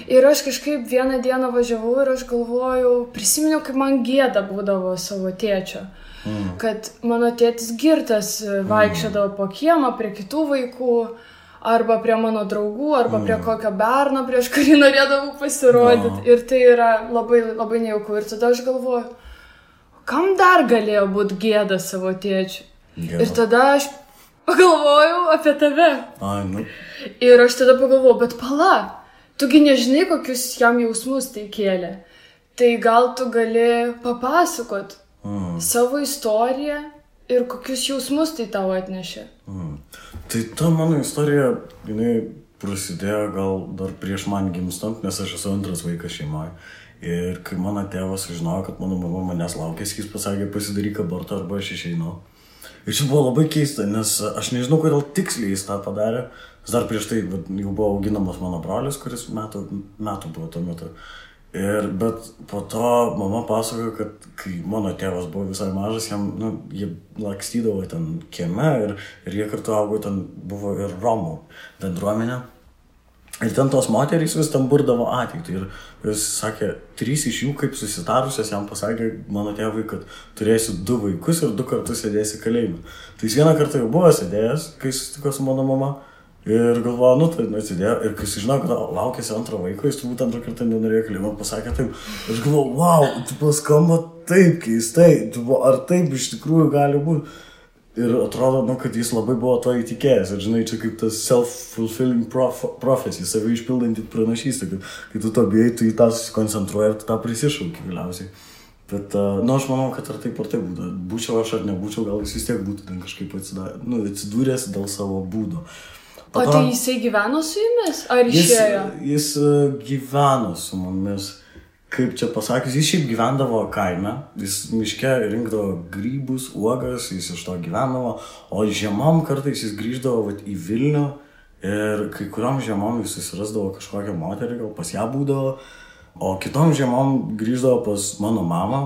Ir aš kažkaip vieną dieną važiavau ir aš galvojau, prisiminiau, kaip man gėda būdavo savo tėčio. Kad mano tėtis girtas vaikščiodavo po kiemą prie kitų vaikų, arba prie mano draugų, arba prie kokio berno, prieš kurį norėdavau pasirodyti. Ir tai yra labai, labai nejauku. Ir tada aš galvoju, kam dar galėjo būti gėda savo tėčiui? Ir tada aš pagalvojau apie tave. Ir aš tada pagalvojau, bet pala, tugi nežinai, kokius jam jausmus tai kėlė. Tai gal tu gali papasakot savo istoriją ir kokius jausmus tai tau atnešė. Tai ta mano istorija, jinai prasidėjo gal dar prieš man gimstant, nes aš esu antras vaikas šeimoje. Ir kai mano tėvas sužinojo, kad mano mama manęs laukėsi, jis pasakė, pasidaryk abortą arba aš išeinu. Ir čia buvo labai keista, nes aš nežinau, kodėl tiksliai jis tą padarė. Dar prieš tai jau buvo auginamas mano brolis, kuris metų buvo tuo metu. Bet po to mama pasakojo, kad kai mano tėvas buvo visai mažas, jie lakstydavo ten kieme ir jie kartu augo, ten buvo ir Romų bendruomenė. Ir ten tos moterys vis ten burdavo ateitį. Ir jis sakė, 3 iš jų, kaip susitarusios, jam pasakė mano tėvui, kad turėsi 2 vaikus ir 2 kartus sėdėsi kalėjime. Tai jis vieną kartą jau buvo sėdėjęs, kai susitiko su mano mama. Ir galvoju, tai atsidėjo. Ir kai sužinau, kad laukėsi antro vaiko, jis turbūt antrą kartą nenorėjo kalėjimo, pasakė taip. Aš galvoju, wow, skamba taip keistai, ar taip iš tikrųjų gali būti. Ir atrodo, kad jis labai buvo to įtikėjęs. Ir žinai, čia kaip tas self-fulfilling prophecy, save išpildanti pranašystė, kad kai tu to bijai, tu į tą susikoncentruoji ir tu tą prisišauki galiausiai. Bet, aš manau, kad ar taip būtų. Būčiau aš ar nebūčiau, gal jis vis tiek būtų ten kažkaip atsidūręs dėl savo būdo. O tai jisai gyveno su jumis? Ar išėjo? Jis gyveno su mumis. Kaip čia pasakius, jis šiaip gyvendavo kaime. Jis miške rinkdavo grybus, uogas, jis iš to gyvendavo. O žiemom kartais jis grįždavo į Vilnių ir kai kuriom žiemom jis susirasdavo kažkokią moterį, gal pas ją būdavo. O kitom žiemom grįždavo pas mano mamą,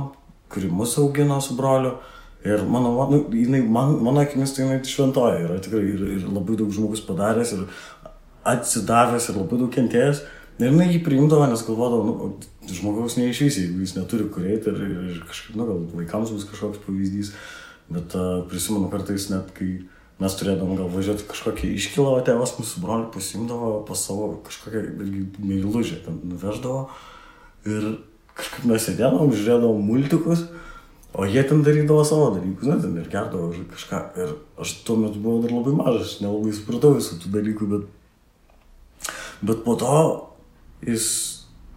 kuri mus augino su broliu. Ir mano akimis tai jinai šventoja yra tikrai ir labai daug žmogus padaręs ir atsidavęs ir labai daug kentėjęs. Ir jinai jį priimdavo, nes galvodavo, žmogaus neišvysi, jeigu jis neturi kur eiti ir kažkaip, gal vaikams bus kažkoks pavyzdys. Bet prisimenu kartais net, kai mes turėdavom gal važiuoti kažkokią iškilą, o tėvas mūsų brolį pasimdavo pas savo kažkokią meilužę, ten nuveždavo. Ir kažkaip mes sėdėdavom, žiūrėdavom multikus. O jie ten darydavo savo dalykus, ten ir gerdavo kažką. Ir aš tuo metu buvau dar labai mažas, nelabai supratau visų tų dalykų, Bet po to jis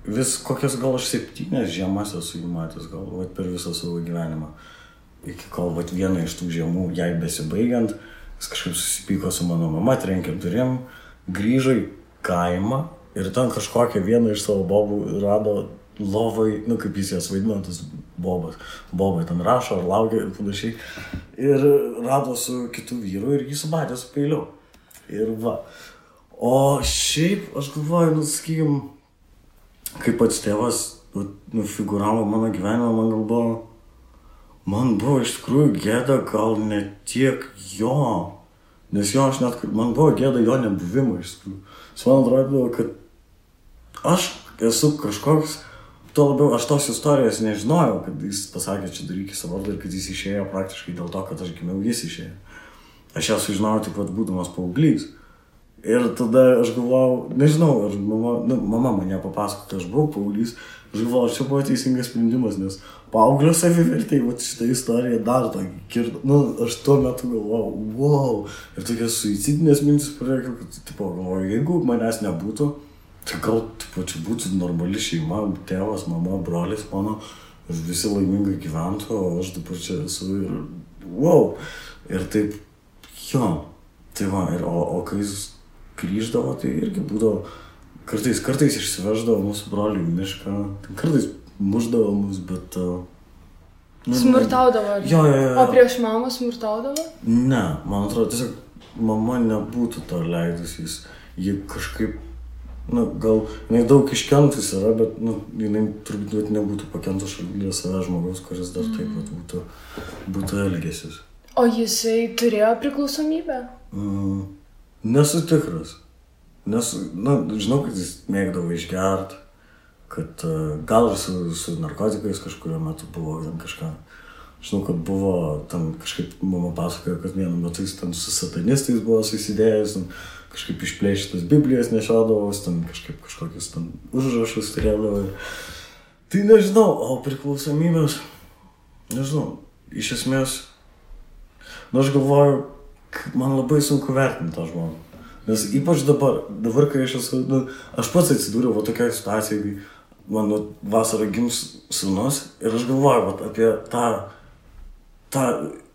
vis kokias gal aš 7 žiemas esu įmatęs, gal per visą savo gyvenimą. Iki kol vieną iš tų žiemų jai besibaigiant, jis kažkaip susipyko su mano mama, trenkė durim, grįžo į kaimą ir ten kažkokią vieną iš savo bobų rado lovai, kaip jis jas vaidino, tas bobas. Bobai ten rašo ar laukia ir panašiai. Ir rado su kitu vyru ir jį sumatė su peiliu. Ir va. O šiaip, aš galvoju, sakykim, kaip pats tėvas figuravo mano gyvenimą, man buvo iš tikrųjų gėda gal ne tiek jo, nes jo aš net, man buvo gėda jo nebuvimo iš tikrųjų. Man atrodo, kad aš esu kažkoks, tuo labiau aš tos istorijos nežinojau, kad jis pasakė, čia daryk į savo vardą ir kad jis išėjo praktiškai dėl to, kad aš gimiau, jis išėjo. Aš ją sužinojau tik būdamas paauglys. Ir tada aš galvojau, nežinau, ar mama mane papasako, kad aš buvau paauglys, aš galvojau, ar čia buvo teisingas sprendimas, nes paauglio savivertė, šitą istoriją dar tokį kirto, aš tuo metu galvojau, wow, ir tokias suicidinės mintis pradėjau, kad galvoju, jeigu manęs nebūtų, tai gal čia būtų normali šeima, tėvas, mama, brolis mano, ir visi laimingai gyventų, o aš dabar čia esu ir wow, ir taip, jo, tai va, o kai jis grįždavo, tai irgi būdavo, kartais išsiveždavo mūsų brolių į mišką, kartais muždavo mus, bet... Smurtaudavo? Jo. O prieš mamą smurtaudavo? Ne, man atrodo, tiesiog mama nebūtų to leidusiais, ji kažkaip, gal jinai daug iškentus yra, bet jinai turbūt nebūtų pakentus šalia savęs žmogaus, kuris dar taip būtų elgęsis. O jisai turėjo priklausomybę? Nesu tikras. Žinau, kad jis mėgdavo išgert, kad gal ir su narkotikais kažkurio metu buvo kažką. Žinau, kad buvo, ten kažkaip mama pasakojo, kad vienu metu jis ten su satanistais buvo susidėjęs, kažkaip išplėšytas Biblijas nešiodavos, ten kažkokius ten užrašus turėdavo. Tai nežinau, o priklausomybės, nežinau, iš esmės, aš galvoju, man labai sunku vertinti tą žmogų. Nes ypač dabar kai aš esu, aš pats atsidūriau tokiai situacijai, kai mano vasarą gims sūnus ir aš galvoju apie tą,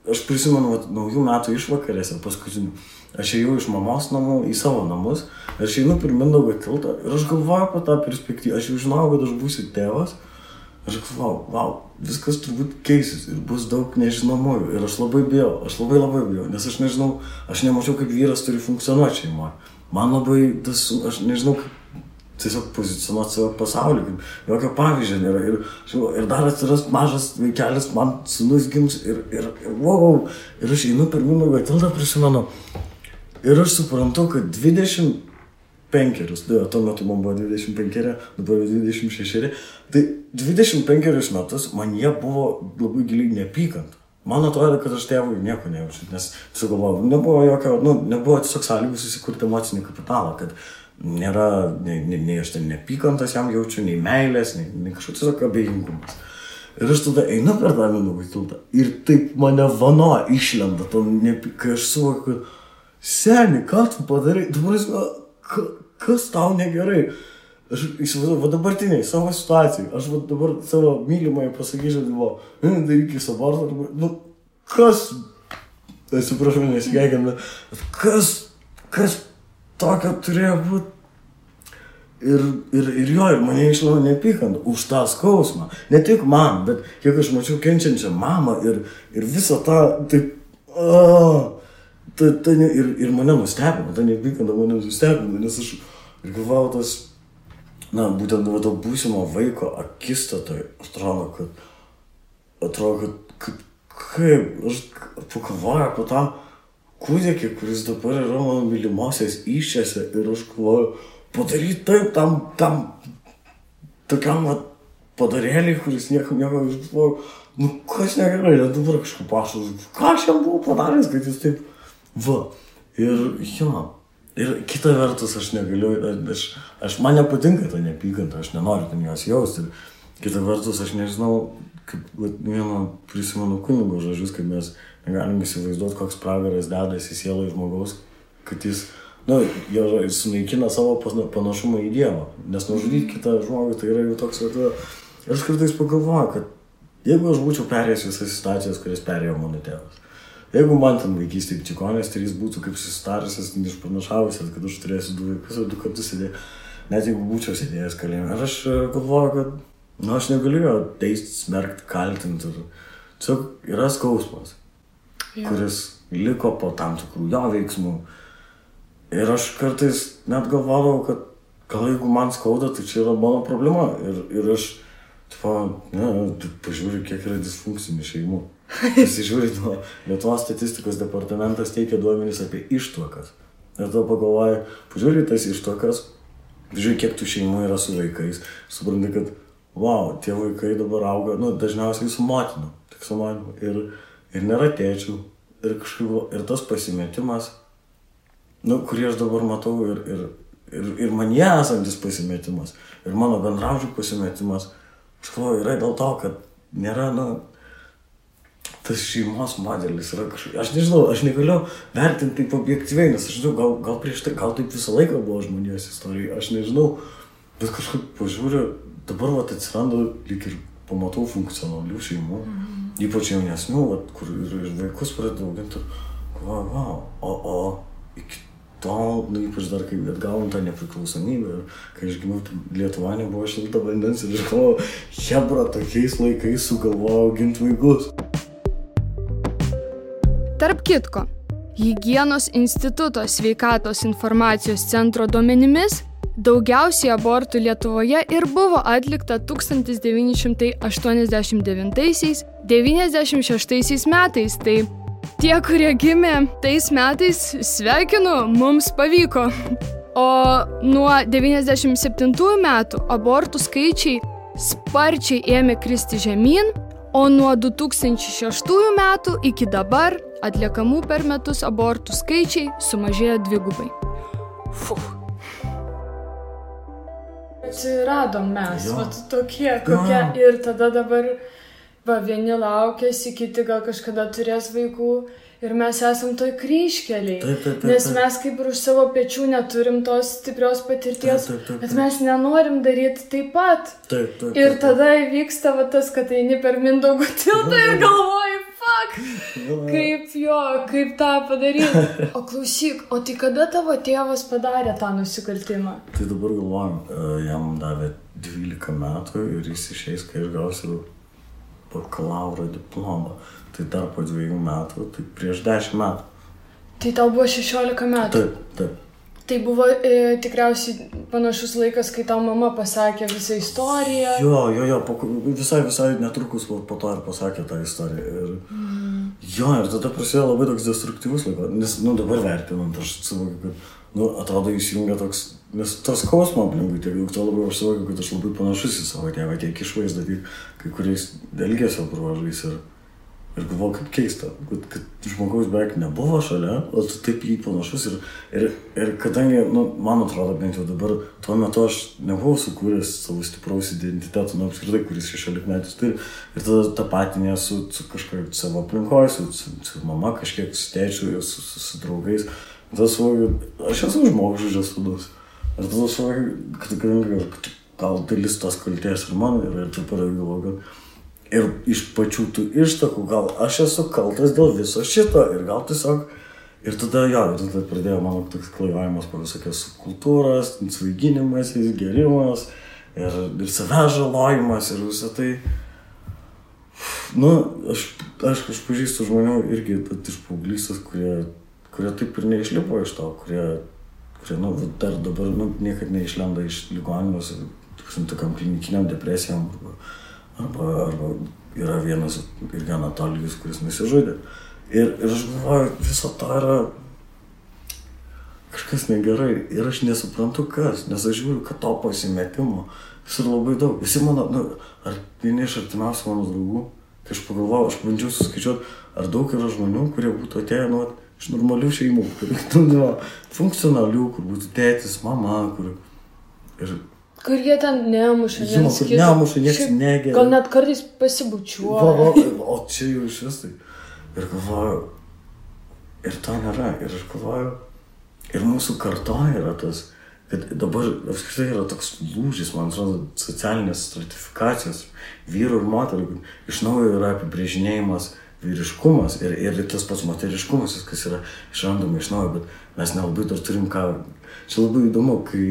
aš prisimenu naujų metų išvakarėse paskutinių. Aš ėjau iš mamos namų į savo namus, aš einu per Mindaugo tiltą ir aš galvoju apie tą perspektyvą. Aš jau žinau, kad aš būsiu tėvas. Aš galvoju, wow, viskas turbūt keisis ir bus daug nežinomųjų. Ir aš labai bijau, nes aš nežinau, aš nemačiau, kaip vyras turi funkcionuoti šeimoje. Man labai, aš nežinau, kaip tiesiog pozicionuoti savo pasaulį, kaip jokio pavyzdžio nėra. Ir dar atsiras mažas vaikelis, man sūnus gims ir wow, ir aš einu per Mindaugo tiltą, prisimenu. Ir aš suprantu, kad 25, tuo metu man buvo 25, dabar 26, tai 25 metus man jie buvo labai giliai neapykant. Man atrodo, kad aš tėvui nieko nejaučiu, nes tiesiog galvoju, nebuvo tiesiog sąlygų susikurti emocinį kapitalą, kad nėra, nei aš ten neapykantas jam jaučiu, nei meilės, nei kažkoks tiesiog abejingumas. Ir aš tada einu per tą Mindaugo tiltą ir taip mane vano išlenda, kai aš suvokiu, kad seni, ką tu padarai? Kas tau negerai? Aš įsivaizduoju, dabartiniai, savo situacijai, aš dabar savo mylimai pasakyčiau, darykis abortą, kas, atsiprašau, nesigeigiam, kas tokio turėjo būti? Ir mane išlavo neapykant už tą skausmą. Ne tik man, bet kiek aš mačiau kenčiančią mamą ir visą tą, taip, ir mane nustebino, ta neapykanta mane nustebino, nes aš galvojau būtent to būsimo vaiko akistatoj, atrodo, kad kaip, aš pagalvoju apie tą kūdikį, kuris dabar yra mano mylimosios įsčiose ir aš galvoju, padaryti taip tam tokiam padarėliai, kuris nieko, aš galvoju, kas negerai, net dabar kažkaip pašau, ką aš jam buvau padaręs, kad jis taip, ir kita vertus aš negaliu, man nepatinka ta neapykanta, aš nenoriu ten jos jausti, ir kita vertus aš nežinau, kaip vieno prisimenu kunigo žodžius, kad mes negalim įsivaizduoti, koks pragaras dedasi sielai žmogaus, kad jis nu, jie sunaikina savo panašumą į Dievą. Nes nužudyti kitą žmogų, tai yra jau toks, ir aš kartais pagalvoju, kad jeigu aš būčiau perėjęs visas situacijas, kurias perėjo mano tėvas, jeigu man ten vaikystėje čikonės, tai jis būtų kaip susitarusias, išpranašavusias, kad aš turėsiu 2 vaikus ir 2 kartus sėdėjau, net jeigu būčiau sėdėjęs kalėjime. Ir aš galvoju, kad aš negaliu jo teisti, smerkti, kaltinti. Tiesiog yra skausmas, kuris liko po tam tikrų jo veiksmų. Ir aš kartais net galvodavau, kad gal jeigu man skauda, tai čia yra mano problema. Ir aš pažiūriu, kiek yra disfunkcinių šeimų. Pasižiūrė, Lietuvos statistikos departamentas teikia duomenys apie ištuokas. Ir to pagalvoju, pažiūrė tas ištuokas, žiūrė, kiek tų šeimų yra su vaikais. Supranti, kad, tie vaikai dabar auga, dažniausiai su motinu, tik su manimi. Ir nėra tėčių. Ir tas pasimetimas, kurį aš dabar matau, ir manie esantis pasimetimas, ir mano bendraužių pasimetimas, aš galvoju, yra dėl to, kad nėra, tas šeimos modelis yra kažkaip, aš nežinau, aš negaliu vertinti taip objektyviai, nes aš žinau, gal prieš tai, gal taip visą laiką buvo žmonijos istorija, aš nežinau, bet kažkaip pažiūriu, dabar atsiranda lyg ir pamatau funkcionalių šeimų, ypač jaunesnių, kur ir vaikus pradeda auginti, o iki tol, ypač dar kai atgavom tą nepriklausomybę, ir kai aš gimiau, Lietuva nebuvo šilta vandens ir aš galvoju, hebra, tokiais laikais sugalvojo auginti vaikus. Tarp kitko, Higienos instituto sveikatos informacijos centro duomenimis, daugiausiai abortų Lietuvoje ir buvo atlikta 1989–96 metais, tai tie, kurie gimė tais metais, sveikinu, mums pavyko. O nuo 97 metų abortų skaičiai sparčiai ėmė kristi žemyn, o nuo 2006 metų iki dabar atliekamų per metus abortų skaičiai sumažėjo 2. Atsiradom mes, tokie kokie, ir tada dabar vieni laukėsi, kiti gal kažkada turės vaikų ir mes esam toj kryžkeliai, nes mes kaip ir už savo pečių neturim tos stiprios patirties, bet mes nenorim daryti taip pat. Ir tada įvyksta tas, kad eini per Mindaugo tiltą ir galvoji, kaip tą padaryti. O klausyk, o tai kada tavo tėvas padarė tą nusikaltimą? Tai dabar galvojam, jam davė 12 metų ir jis išeis, kai aš gausiu bakalauro diplomą. Tai dar po 2 metų, tai prieš 10 metų. Tai tau buvo 16 metų? Taip. Tai buvo tikriausiai panašus laikas, kai tau mama pasakė visą istoriją. Jo, visai netrukus po to ir pasakė tą istoriją. Ir tada prasidėjo labai toks destruktyvus laikas, nes, dabar vertinant, aš suvokiu, kad, atrodo įsijungia toks, nes tas skausmo aplinkui tiek daug, to labai aš suvokiu, kad aš labai panašus į savo tėvą, tiek išvaizdą, tiek kai kuriais elgesio bruožais ir galvoju, kaip keista, kad žmogaus beveik nebuvo šalia, o tu taip jį panašus ir kadangi, man atrodo, bent jau dabar, tuo metu aš nebuvau sukūręs savo stipraus identiteto, apskritai, kuris 16 metus turi, ir tada tapatinė su kažkaip savo aplinkoj, su mama kažkiek, su tėčiu, su draugais, tada suvokiu, aš esu žmogžudžio sūnus, ir tada suvokiu, kad gal dalis tos kaltės ir man, ir taip galvoju, kad ir iš pačių tų ištakų, gal aš esu kaltas dėl viso šito ir gal tiesiog, ir tada pradėjo mano toks klaivavimas po visokias kultūras, svaiginimas, gerimas ir savęs žalojimas ir visą tai. Aš pažįstu žmonių irgi iš paauglystės, kurie taip ir neišlipo iš to, kurie dar dabar niekad neišlenda iš ligoninės, tokiam klinikiniam depresijom arba yra vienas irgi Anatolijus, kuris nusižudė. Ir aš galvoju, viso to yra kažkas negerai ir aš nesuprantu kas, nes aš žiūriu, kad to pasimetimo jis yra labai daug. Visi mano, ar vieni iš artimiausių mano draugų, kai aš pagalvojau, aš bandžiau suskaičiuoti, ar daug yra žmonių, kurie būtų atėję iš normalių šeimų, funkcionalių, kur būtų tėtis, mama, kur jie ten nemuša, nieks negeria. Gal net kartais pasibučiuoja. O čia jau iš vis tai. Ir galvoju, ir to nėra. Ir aš galvoju, Ir mūsų kartoje yra tas, kad dabar apskritai yra toks lūžis, man atrodo, socialinės stratifikacijos vyrų ir moterų. Iš naujo yra apibrėžinėjimas vyriškumas ir tas pats moteriškumas, viskas yra išrandama iš naujo, bet mes nelabai dar turim ką. Čia labai įdomu, kai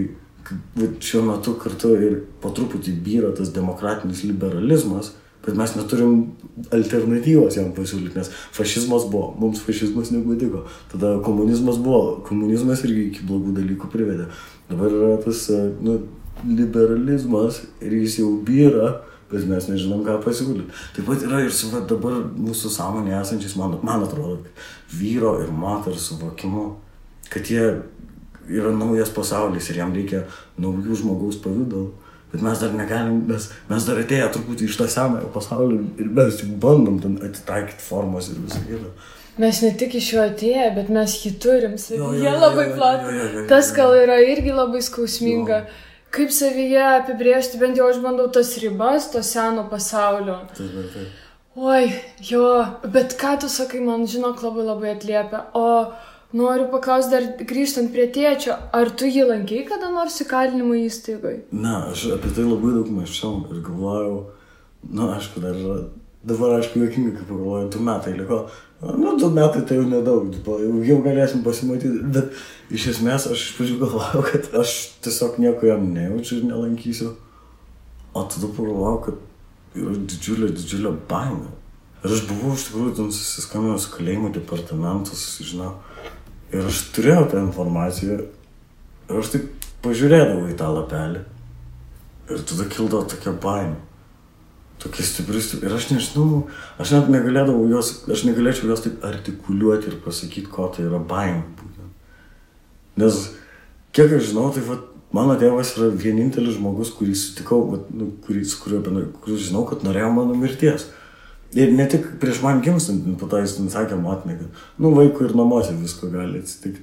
šiuo metu kartu ir po truputį byra tas demokratinis liberalizmas, bet mes neturim alternatyvos jam pasiūlyti, nes fašizmas buvo, mums fašizmas nepatiko. Tada komunizmas buvo, komunizmas irgi iki blogų dalykų privedė. Dabar yra tas liberalizmas ir jis jau byra, bet mes nežinom, ką pasiūlyti. Taip pat yra ir su dabar mūsų sąmonė esančiais, man atrodo, vyro ir moters suvokimu, kad jie yra naujas pasaulis ir jam reikia naujų žmogaus pavidalų. Bet mes dar negalim, mes dar atėję truputį iš tą senąją pasaulį ir mes tik bandom ten atitaikyti formos ir visą kitą. Mes ne tik iš jo atėję, bet mes jį turim savyje labai platų. Tas gal yra irgi labai skausminga. Kaip savyje apibrėžti, bent jau aš bandau tas ribas, to seno pasaulio. Taip. Oi, jo, bet ką tu sakai, man žinok labai atliepia. O noriu paklausti dar grįžtant prie tėčio, ar tu jį lankei kada nors įkalinimo įstaigoje? Ne, aš apie tai labai daug mąsčiau ir galvojau, aišku, dabar aišku juokingai, kaip pagalvojau, 2 metai liko. 2 metai tai jau nedaug, jau galėsim pasimatyti, bet iš esmės aš iš pradžių galvojau, kad aš tiesiog nieko jam nejaučiu ir nelankysiu. O tada pagalvojau, kad yra didžiulė baimė. Ir aš buvau iš tikrųjų ten susiskambinęs su kalėjimo departamentu, susižinau. Ir aš turėjau tą informaciją ir aš taip pažiūrėdavau į tą lapelį. Ir tada kildavo tokia baimė. Tokia stipri. Ir aš nežinau, aš net negalėčiau jos taip artikuliuoti ir pasakyti, ko tai yra baimė būtent. Nes kiek aš žinau, tai mano tėvas yra vienintelis žmogus, kurį sutikau, kurį žinau, kad norėjo mano mirties. Ir ne tik prieš man gimstant, po to jis sakė motinai, kad vaikui ir namuose visko gali atsitikti.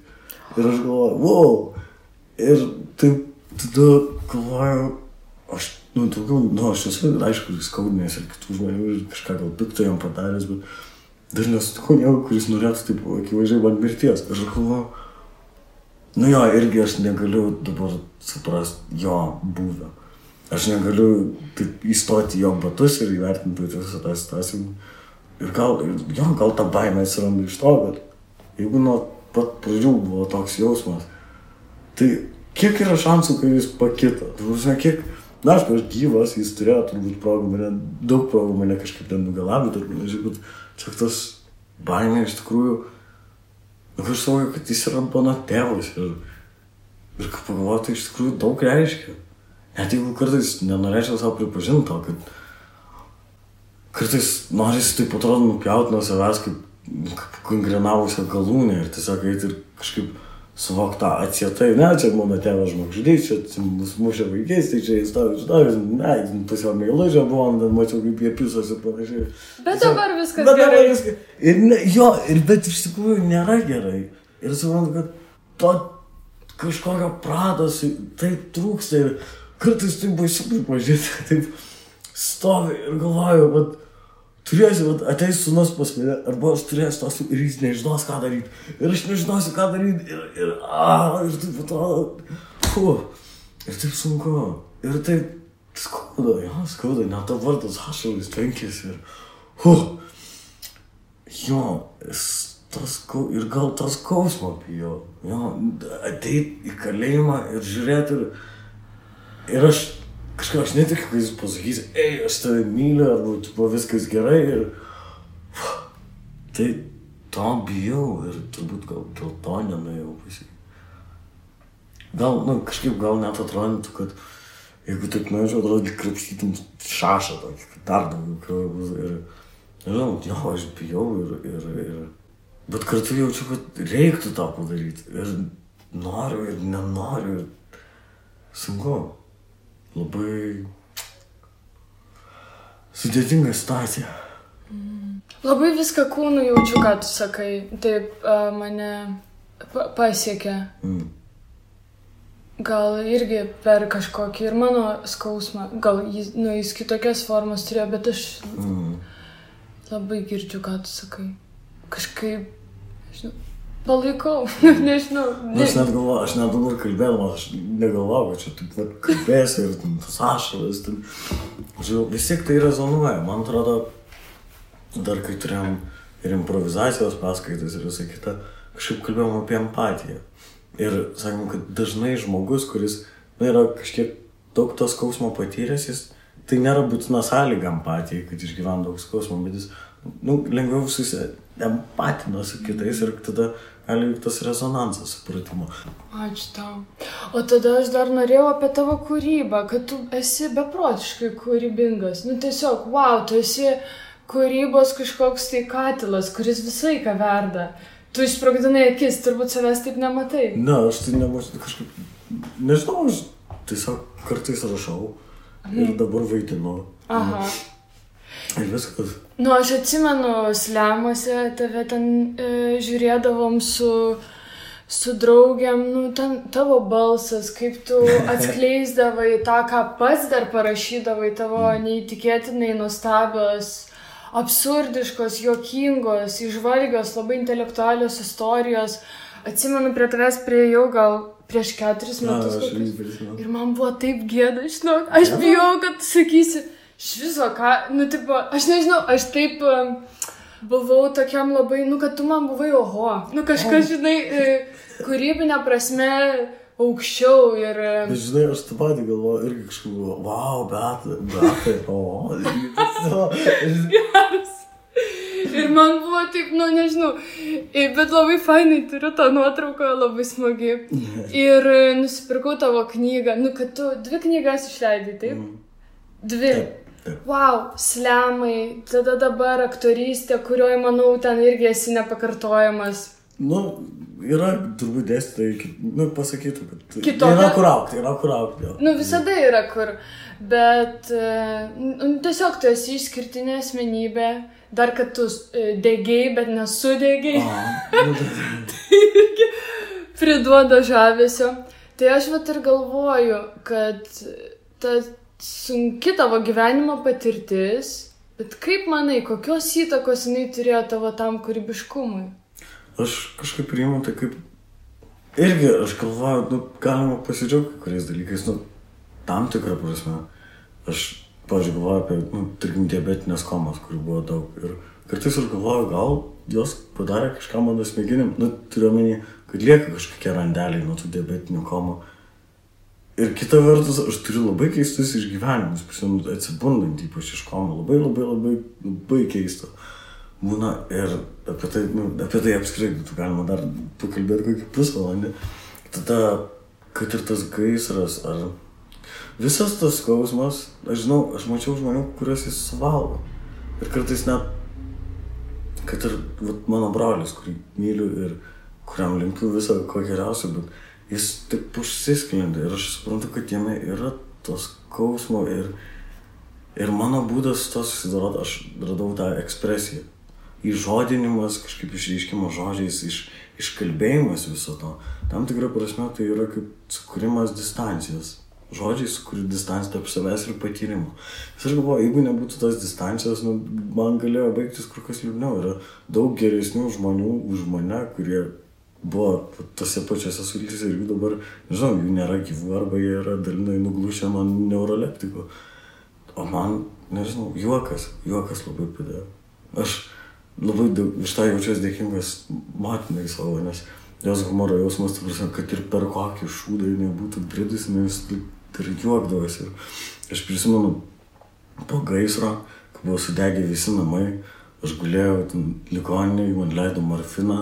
Ir aš galvoju, wow! Ir taip tada galvoju, aš esu, aišku, skaudinęs ir kitų žmonių ir kažką gal pikto jam padaręs, bet dar nesutikau nieko, kuris norėtų taip akivaizdžiai man mirties. Ir aš galvoju, irgi aš negaliu dabar suprasti jo buvę. Aš negaliu taip įstoti jo batus ir įvertinti visą tą situaciją. Ir gal ta baimė atsiranda iš to, bet jeigu nuo pat pradžių buvo toks jausmas, tai kiek yra šansų, kai jis pakito? Aš gyvas, jis turėjo turbūt daug progų mane kažkaip ten nugalabyti, bet čia tas baimė iš tikrųjų, aš suvokiu, kad jis yra mano tėvas ir kaip pagalvoju, tai iš tikrųjų daug reiškia. Net jeigu kartais nenorėčiau savo pripažinti to, kad kartais norisi taip atrodo nupjauti nuo savęs kaip kongrinavusią galūnę ir tiesiog eiti ir kažkaip suvokti tą atsietai. Ne, čia mano tėvas žmogžudys, čia mus mušė vaikais, tai čia jis pas jo meilužę buvom, ten mačiau kaip jie pisos ir panašiai. Bet dabar viskas gerai. Bet iš tikrųjų nėra gerai. Ir suprantu, kad to kažkokio prados taip trūksta ir kartais taip baisu pripažinti, taip stovi ir galvoju, kad turėsiu, ateis sūnus pas mane, arba aš turėsiu tos ir jis nežinos, ką daryti. Ir aš nežinosiu, ką daryti. Ir taip atrodo, ir taip sunku. Ir taip skauda, net to vardas ašalis tenkėsi. Ir gal tas skausmo bijau. Ateit į kalėjimą ir žiūrėti ir aš netikiu, kai jis pasakys, aš tave myliu, arba viskas gerai ir tai to bijau ir turbūt gal dėl to nenuėjau pasakyti. Gal net atrodytų, kad jeigu taip nuėčiau, atrodo, krapštytum šašą tokį, kad dar daugiau kraujo bus ir nežinau, aš bijau ir bet kartu jaučiu, kad reiktų tą padaryti ir noriu ir nenoriu ir sunku. Labai sudėtinga situacija. Labai viską kūnu jaučiu, ką tu sakai. Taip mane pasiekė. Gal irgi per kažkokį ir mano skausmą. Gal jis kitokias formas turėjo, bet aš labai girdžiu, ką tu sakai. Kažkaip, žinau, Palaikau, nežinau. Aš net dabar kalbėdama, aš negalvojau, kad čia taip kalbėsiu ir tas ašaras. Vis tiek tai rezonuoja. Man atrodo, dar kai turėjom ir improvizacijos paskaitas ir visą kitą, kažkaip kalbėjom apie empatiją. Ir sakom, kad dažnai žmogus, kuris yra kažkiek daug to skausmo patyręs, jis tai nėra būtina sąlyga empatijai, kad išgyvena daug skausmo, bet jis lengviau empatina su kitais ir tada gali tas rezonansas supratimo. Ačiū tau. O tada aš dar norėjau apie tavo kūrybą, kad tu esi beprotiškai kūrybingas. Tiesiog, wow, tu esi kūrybos kažkoks tai katilas, kuris visai ką verda. Tu išsprogdinai akis, turbūt savęs taip nematai. Ne, aš tai nemačiau kažkaip, nežinau, aš tiesiog kartais rašau ir dabar vaidinu. Aha. Ir viskas. Aš atsimenu slemuose, tave ten žiūrėdavom su draugiam, ten tavo balsas, kaip tu atskleisdavai tą, ką pats dar parašydavai, tavo neįtikėtinai nuostabios, absurdiškos, juokingos, įžvalgios, labai intelektualios istorijos. Atsimenu, prie tavęs priėjau gal prieš 4 metus. Ir man buvo taip gėda, žinok, aš bijau, kad tu sakysi, šviso, ką, aš nežinau, aš taip buvau tokiam labai, kad tu man buvai oho. Kažkas, žinai, kūrybinė prasme aukščiau ir... Bet žinai, aš tą patį galvoju irgi kažkaip buvo, wow, Beata, oho. Geras. Ir man buvo taip, nežinau, bet labai fainai turiu tą nuotrauką, labai smagi. Ir nusipirkau tavo knygą, kad tu 2 knygas išleidai, taip? 2. Wow, slemai, tada dabar aktorystė, kurioje, manau, ten irgi esi nepakartojamas. Yra turbūt dėstytojai, pasakytų, kad kitokia... yra kur aukti. Visada yra kur, bet tiesiog tu esi išskirtinė asmenybė, dar kad tu degiai, bet nesudegiai. Tai irgi priduoda žavesio. Tai aš ir galvoju, kad ta sunki tavo gyvenimo patirtis, bet kaip manai, kokios įtakos jinai turėjo tavo tam kūrybiškumui? Aš kažkaip priimu tai kaip... Irgi aš galvoju, galima pasidžiaugti kuriais dalykais, tam tikrą prasme. Aš, pavyzdžiui, galvoju apie, tarkim, diabetinės komas, kurių buvo daug. Ir kartais aš galvoju, gal jos padarė kažką mano smegenim. Turiu omeny, kad lieka kažkokie randeliai nuo tų diabetinių komų. Ir kita vertus, aš turiu labai keistus išgyvenimus, atsibundant ypač iš komų. Labai keista. Būna ir apie tai apskritai galima dar pakalbėti kokį pusvalandį. Tada, kad ir tas gaisras, ar visas tas skausmas, aš žinau, aš mačiau žmonių, kuriuos jis suvalgo. Ir kartais net, kad ir mano brolis, kurį myliu ir kuriam linkiu visą ko geriausio, bet jis taip užsisklendė ir aš suprantu, kad jame yra tos skausmo ir mano būdas to susidoroti, aš radau tą ekspresiją. Įžodinimas, kažkaip išreiškimas žodžiais, iškalbėjimas viso to. Tam tikrą prasme tai yra kaip sukūrimas distancijos. Žodžiai sukūri distanciją tarp savęs ir patyrimo. Aš galvoju, jeigu nebūtų tos distancijos, man galėjo baigtis kur kas liūdniau. Yra daug geresnių žmonių už mane, kurie buvo tose pačiose sultyse ir jų dabar, nežinau, jų nėra gyvų arba jie yra dalinai nuglušę man neuroleptikų. O man, nežinau, juokas labai padėjo. Aš labai iš tą jaučiuosi dėkingas motinai savo, nes jos humoro jausmas, kad ir per kokį šūdą jinai būtų bridus, nes ir juokdavosi. Aš prisimenu po gaisro, kai buvo sudegę visi namai, aš gulėjau ligoninėje, man leido morfiną.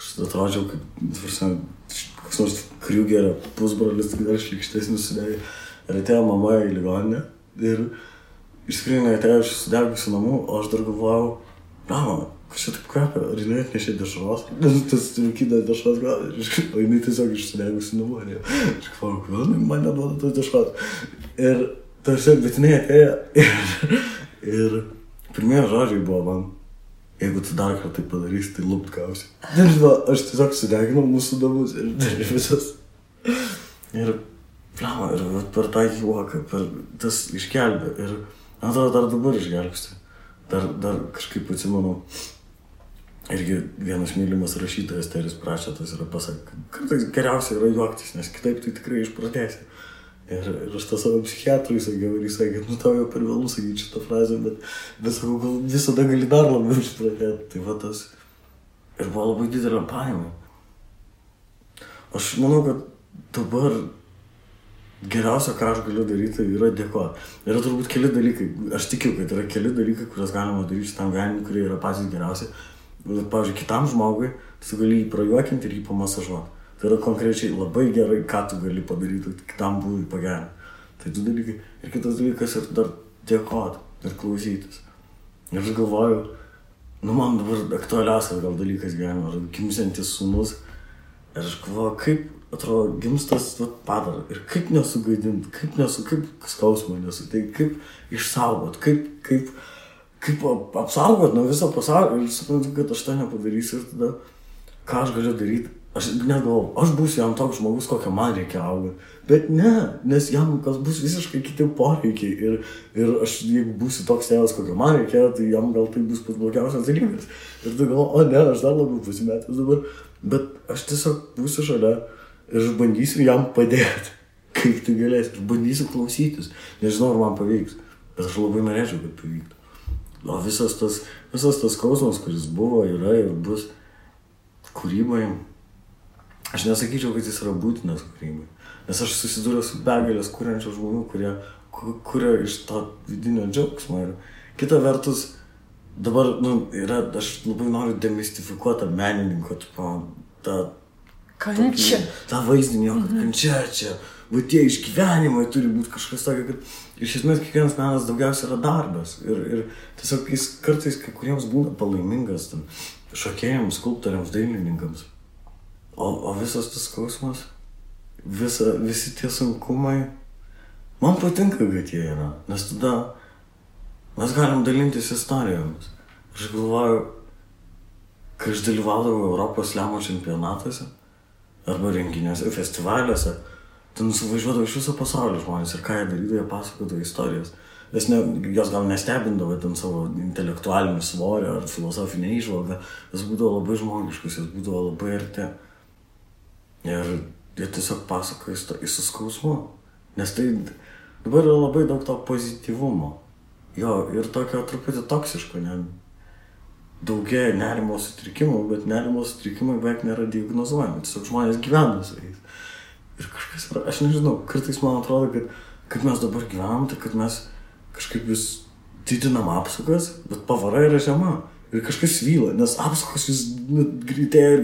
Aš atrodžiau, kaip koks nors Kriugerio pusbrolis, tik dar šlikštesnis sudegė. Ir atėjo mama į ligoninę ir išskrinai atėjo iš sudegusių namų, o aš dar galvojau, kas čia taip kvepia, ar jinai atnešė dešros? Tas rūkyda dešros gal, o jinai tiesiog iš sudegusių namų. Aš galvojau, kodėl man neduoda tos dešros. Ir tarsi, bet jinai atėjo ir pirmieji žodžiai buvo man. Jeigu tu dar kartą tai padarysi, tai lupt gausi. Aš tiesiog sudeginau mūsų namus ir visas. Ir per tą juoką, per tas išgelbė. Ir man atrodo, dar dabar išgelbsti. Dar kažkaip atsimenu, Irgi vienas mylimas rašytojas Teris Pračetas yra pasakė, kartais geriausia yra juoktis, nes kitaip tai tikrai išprotėsi. Ir aš tą savo psichiatrui sakiau ir jis sakė, tau jau per vėlų sakyti šitą frazę, bet sakau, gal visada gali dar labiau išprotėti. Tai va tas ir buvo labai didelė paima. Aš manau, kad dabar geriausia, ką aš galiu daryti, yra dėkoti. Yra turbūt keli dalykai, aš tikiu, kad yra keli dalykai, kuriuos galima daryti šitam gyvenimui, kurie yra patys geriausi. Bet, pavyzdžiui, kitam žmogui, tu gali jį prajuokinti ir jį pamasažuoti. Tai yra konkrečiai labai gerai, ką tu gali padaryti, kitam būdui pagerinti. Tai du dalykai. Ir kitas dalykas ir dar dėkoti ir klausytis. Ir aš galvoju, man dabar aktualiausias gal dalykas gyvenime, ar gimsiantis sūnus. Ir aš galvoju, kaip atrodo gimstas padara ir kaip nesugaidinti, kaip skausmo nesuteikti, kaip išsaugoti, kaip apsaugoti nuo viso pasaulio. Ir suprantu, kad aš tą nepadarysiu ir tada ką aš galiu daryti. Aš net galvoju, aš būsiu jam toks žmogus, kokią man reikia augti. Bet ne, nes jam bus visiškai kiti poreikiai. Ir aš, jeigu būsiu toks tėvas, kokio man reikia, tai jam gal tai bus pats blogiausias dalykas. Ir tu galvoju, o ne, aš dar labiau pasimetęs dabar. Bet aš tiesiog būsiu šalia ir aš bandysiu jam padėti, kaip tai galės. Ir bandysiu klausytis. Nežinau, ar man pavyks. Bet aš labai norėčiau, kad pavyktų. O visas tas skausmas, kuris buvo, yra ir bus kūrybai. Aš nesakyčiau, kad jis yra būtinas kūrybai. Nes aš susidūriau su begalės kuriančių žmonių, kurie kuria iš to vidinio džiaugsmo. Ir kita vertus, dabar, aš labai noriu demistifikuoti tą menininko, tą vaizdinį, kad kančia čia, va tie išgyvenimai turi būti kažkas tokio, kad iš esmės kiekvienas menas daugiausia yra darbas. Ir tiesiog jis kartais kai kuriems būna palaimingas, šokėjams, skulptoriams, dailininkams. O visas tas skausmas, visi tie sunkumai, man patinka, kad jie yra, nes tada mes galim dalintis istorijomis. Aš galvoju, kai aš dalyvaudavau Europos slemo čempionatuose arba renginiuose, festivaliuose, ten suvažiuodavo iš viso pasaulio žmonės ir ką jie darydavo, jie pasakodavo istorijas. Jos gal nestebindavo ten savo intelektualinį svorį ar filosofinę įžvalgą, jos būdavo labai žmogiškus, jos būdavo labai arti. Ir jie tiesiog pasakoja su skausmu, nes tai dabar yra labai daug to pozityvumo. Jo, ir tokio truputį toksiško, daugėja nerimo sutrikimų, bet nerimo sutrikimai beveik nėra diagnozuojami, tiesiog žmonės gyvena su jais. Ir kažkas yra, aš nežinau, kartais man atrodo, kad mes dabar gyvenam, tai kad mes kažkaip vis didinam apsukas, bet pavara yra žema. Ir kažkas vyla, nes apsukos vis greitėja,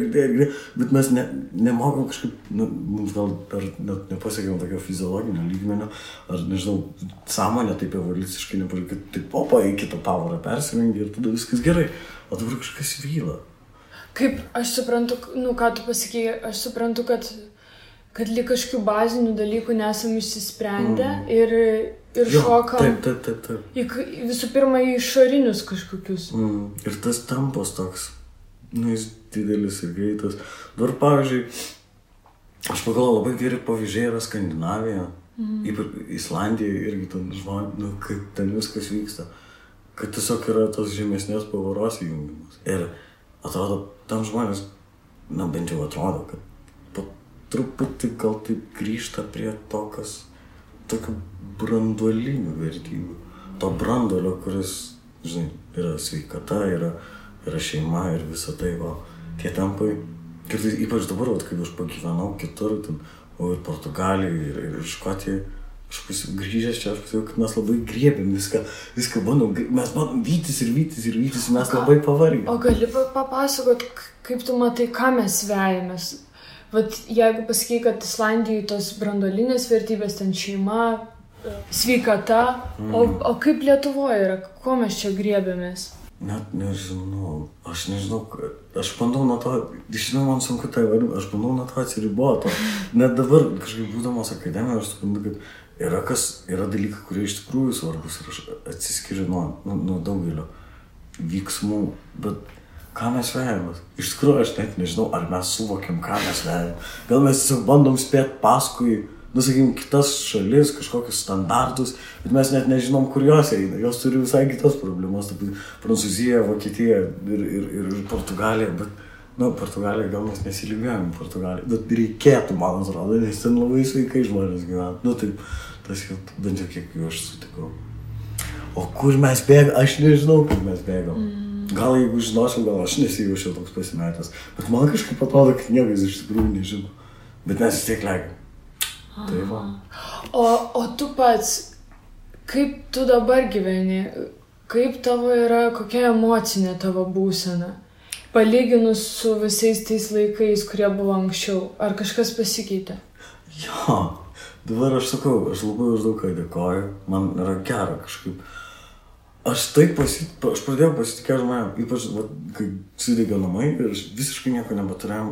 bet mes nemokam kažkaip, mums gal net nepasiekėm tokio fiziologinio lygmenio, ar nežinau, sąmonė taip evoliuciškai nepasiekė, kad taip opa į kitą pavarą persirengia ir tada viskas gerai, o dabar kažkas vyla. Kaip, aš suprantu, ką tu pasakėjai, aš suprantu, kad lyg kažkokių bazinių dalykų nesam išsisprendę ir šokam taip. Visų pirma į išorinius kažkokius. Ir tas tempas toks, jis didelis ir greitas. Dabar, pavyzdžiui, aš pagalvoju, labai geri pavyzdžiai yra Skandinavija, ypač Islandija irgi ten žmonės, kaip ten viskas vyksta, kad tiesiog yra tos žemesnės pavaros įjungimas. Ir atrodo, tam žmonės, bent jau atrodo, kad truputį gal taip grįžta prie to, kas tokių branduolinių vertybių. To branduolio, kuris, žinai, yra sveikata, yra šeima ir visa tai, tie tempai. Kartais, ypač dabar, kaip aš pagyvenau kitur, ir Portugalijoje, ir Škotijoje, aš grįžęs čia, aš pasakiau, kad mes labai griebėm viską bandom, mes bandom vytis, mes labai pavargėm. O gali papasakot, kaip tu matai, ką mes vejamės? Vat jeigu pasakai, kad Islandijoje tos branduolinės vertybės, ten šeima, sveikata, o kaip Lietuvoje yra, ko mes čia griebėmės? Net nežinau, aš bandau nuo to, žinau, man sunku tai vadinti, aš bandau nuo to atsiriboti. Net dabar, kažkaip būdamas akademijoje, aš suprantu, kad yra dalykai, kurie iš tikrųjų svarbus ir aš atsiskiriu nuo daugelio vyksmų, bet ką mes vejamės? Iš tikrųjų, aš net nežinau, ar mes suvokiam, ką mes vejam. Gal mes tiesiog bandom spėti paskui sakykim, kitas šalis, kažkokius standartus, bet mes net nežinom, kur jos eina. Jos turi visai kitas problemas, taip Prancūzija, Vokietija ir Portugalija, bet, Portugalija gal mes nesilygiuojam Portugaliją, bet reikėtų, man atrodo, nes ten labai sveikai žmonės gyvena. Taip, tas jau bent jau kiek jau aš sutikau. O kur mes bėgam? Aš nežinau, kur mes bėgam. Gal jeigu žinočiau, gal aš nesijaučiau toks pasimetęs, bet man kažkaip atrodo, kad niekas iš tikrųjų nežino. Bet mes vis tiek legiam. Tai va. O tu pats, kaip tu dabar gyveni? Kaip tavo yra, kokia emocinė tavo būsena? Palyginus su visais tais laikais, kurie buvo anksčiau. Ar kažkas pasikeitė? Jo, dabar aš sakau, aš labai už daug ką dėkoju. Man yra gera kažkaip. Aš pradėjau pasitikėti žmonėm, ypač, kai sudegė namai ir aš visiškai nieko nebeturėjom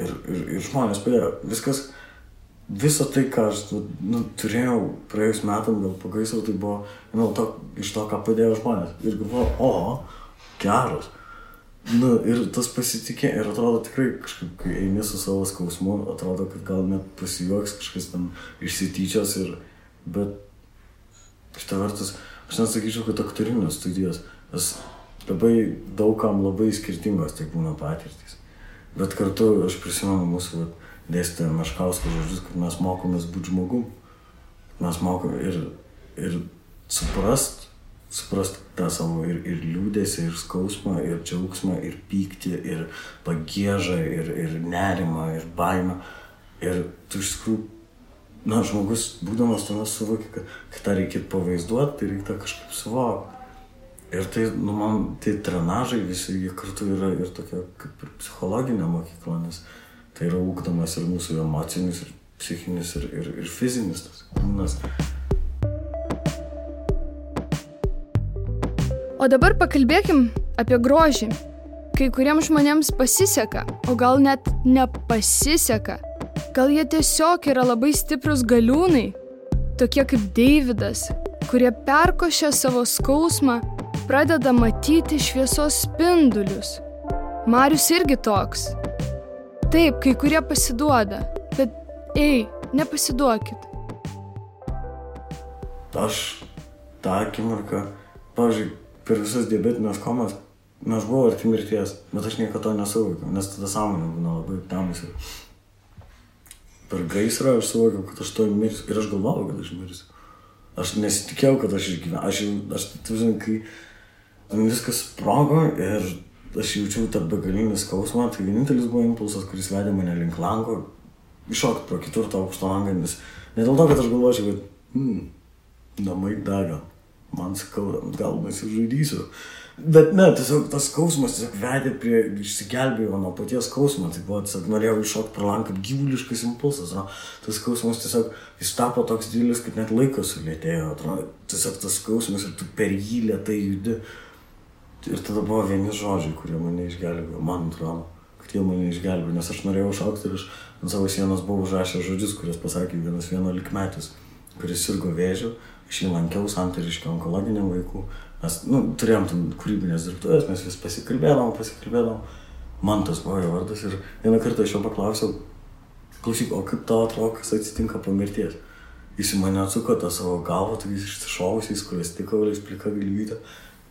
ir žmonės padėjo. Visą tai, ką aš turėjau praėjus metam, gal po gaisro, tai buvo iš to, ką padėjo žmonės. Ir galvoju, geras. Ir tas pasitikė, ir atrodo tikrai kažkaip, kai eini su savo skausmu, atrodo, kad gal net pasijuoks kažkas ten išsityčios, bet šitą vertus, aš nesakyčiau, kad aktorinės studijos, nes labai daugam labai skirtingos tai būna patirtys. Bet kartu aš prisimenu mūsų dėstytoją Meškausko žodžius, kad mes mokomės būti žmogum. Mes mokom ir suprast tą savo ir liūdesį, ir skausmą, ir džiaugsmą, ir pyktį, ir pagiežą, ir nerimą, ir baimę. Ir tu iš tikrųjų, žmogus, būdamas tuomet suvokia, kad tą reikėtų pavaizduoti, tai reikia kažkaip suvokti. Ir tai, man, tai trenažai visi, jie kartu yra ir tokia kaip ir psichologinė mokykla, nes tai yra ugdomas ir mūsų emocinis, ir psichinis, ir fizinis tas kūnas. O dabar pakalbėkim apie grožį. Kai kuriems žmonėms pasiseka, o gal net nepasiseka. Gal jie tiesiog yra labai stiprus galiūnai, tokie kaip Deividas, kurie perkošia savo skausmą, pradeda matyti šviesos spindulius. Marius irgi toks. Taip, kai kurie pasiduoda, bet nepasiduokit. Aš tą akimirką, pavyzdžiui, per visas diabetinės komas, aš buvau arti mirties, bet aš niekada to nesuvokiau, nes tada sąmonė būna labai aptemusi. Per gaisrą aš suvokiau, kad aš to mirsiu ir aš galvojau, kad aš mirsiu. Aš nesitikėjau, kad aš išgyvenau. Kai viskas sprogo ir aš jaučiau tą begalinį skausmą, tai vienintelis buvo impulsas, kuris vedė mane link lango, iššokti pro ketvirtą aukšto langą, nes ne dėl to, kad aš galvočiau, kad namai dega, man skauda, gal nesižaidysiu. Bet ne, tiesiog tas skausmas tiesiog vedė prie išsigelbėjimo nuo paties skausmo, tai buvo tiesiog norėjau iššokti pro langą kaip gyvuliškas impulsas, tas skausmas tiesiog jis tapo toks didelis, kad net laikas sulėtėjo, atrodo, tiesiog tas skausmas ir tu per jį lėtai judi. Ir tada buvo vieni žodžiai, kurie mane išgelbėjo, man atrodo, kad jie mane išgelbėjo, nes aš norėjau šaukti ir aš ant savo sienos buvau užrašęs žodžius, kuriuos pasakė vienas 11-metis, kuris sirgo vėžiu, aš jį lankiau Santariškio onkologiniam vaikų, mes turėjom ten kūrybinės dirbtuvės, mes vis pasikalbėdavom, Mantas buvo jo vardas ir vieną kartą aš jo paklausiau, klausyk, o kaip tau atrodo, kas atsitinka po mirties? Jis į mane atsuko tą savo galvą, tokiais išsišovusiais, kurias tikauliais plika galvytė.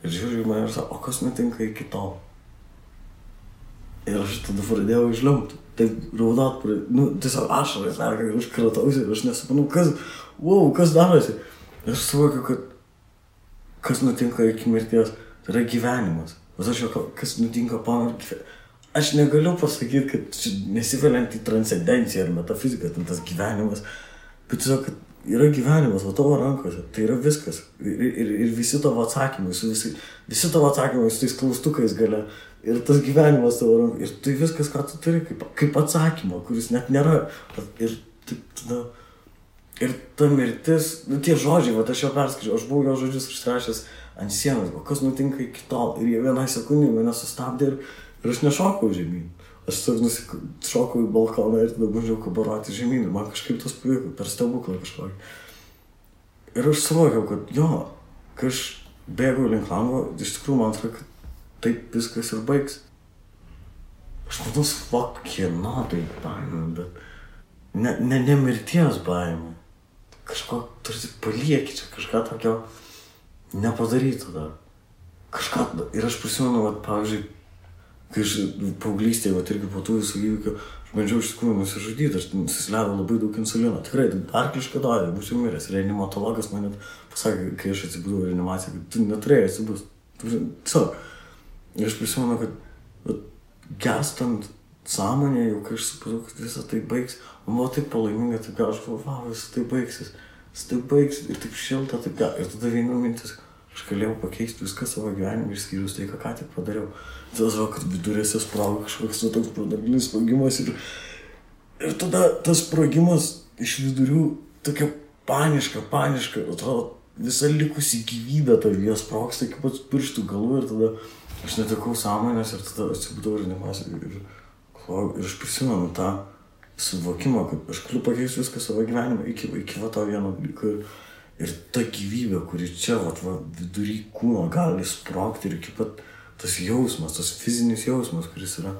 Ir žiūrėjau į mane ir sako, o kas nutinka iki tol? Ir aš tada pradėjau išliumti. Taip raudot, tiesiog ašarai, ir aš kratausi ir aš nesuprantu, kas darosi. Ir aš suvokiu, kad kas nutinka iki mirties, tai yra gyvenimas. Bet aš jau, kas nutinka po mirties. Aš negaliu pasakyti, kad nesiveliant į transcendenciją ar metafiziką, tas gyvenimas. Bet tiesiog, kad yra gyvenimas, o tavo rankose, tai yra viskas. Ir visi tavo atsakymai, visi tavo atsakymai su tais klaustukais gale. Ir tas gyvenimas tavo rankose. Ir tai viskas, ką tu turi, kaip atsakymą, kuris net nėra. Ir taip tada... Ir ta mirtis, tie žodžiai, aš jau perskaičiau, aš buvau jo žodžius išrašęs ant sienos, o kas nutinka iki tol. Ir jie vieną sekundę mane sustabdė ir aš nešokau žemyn. Aš tiesiog šokau į balkoną ir tada bandžiau kabaroti žemyn. Ir man kažkaip tas pavyko, per stebuklą kažkokį. Ir aš suvokiau, kad kai aš bėgau link lango, iš tikrųjų man atrodo, kad taip viskas ir baigs. Aš manau, kieno tai baimė, bet ne mirties baimė. Kažko, tarsi palieki čia, kažką tokio nepadarytų dar. Kažką, ir aš prisimenu, vat, pavyzdžiui, kai aš paauglystėje, vat, irgi po tų visų įvykių, aš bandžiau iš tikrųjų nusižudyti, aš susileidau labai daug insulino. Tikrai, arklišką dozę, būčiau miręs. Reanimatologas man net pasakė, kai aš atsibudau reanimaciją, kad tu neturėjai atsibūs. Tiesiog. Ir aš prisimenu, kad gestant sąmonė, jau kai aš supratau, kad visą tai baigs, man buvo taip palaiminga, taip aš galvoju, visą tai baigsis, ir taip šilta, taip gal. Ir tada viena mintis, aš galėjau pakeisti viską savo gyvenimą, išskyrus tai, ką tik padariau. Tada žinau, kad vidurėse sprogo kažkoks toks branduolinis sprogimas ir tada tas sprogimas iš vidurių tokia paniška, atrodo, visa likusi gyvybė tavyje sprogsta iki pats pirštų galų ir tada aš netekau sąmonės ir tada atsibudau reanimacijoje ir aš prisimenu tą suvokimą, kad aš galiu pakeisti viską savo gyvenimą iki va to vieno dalyko ir ta gyvybė, kuri čia va vidury kūno gali sprogti ir iki pat tas jausmas, tas fizinis jausmas, kuris yra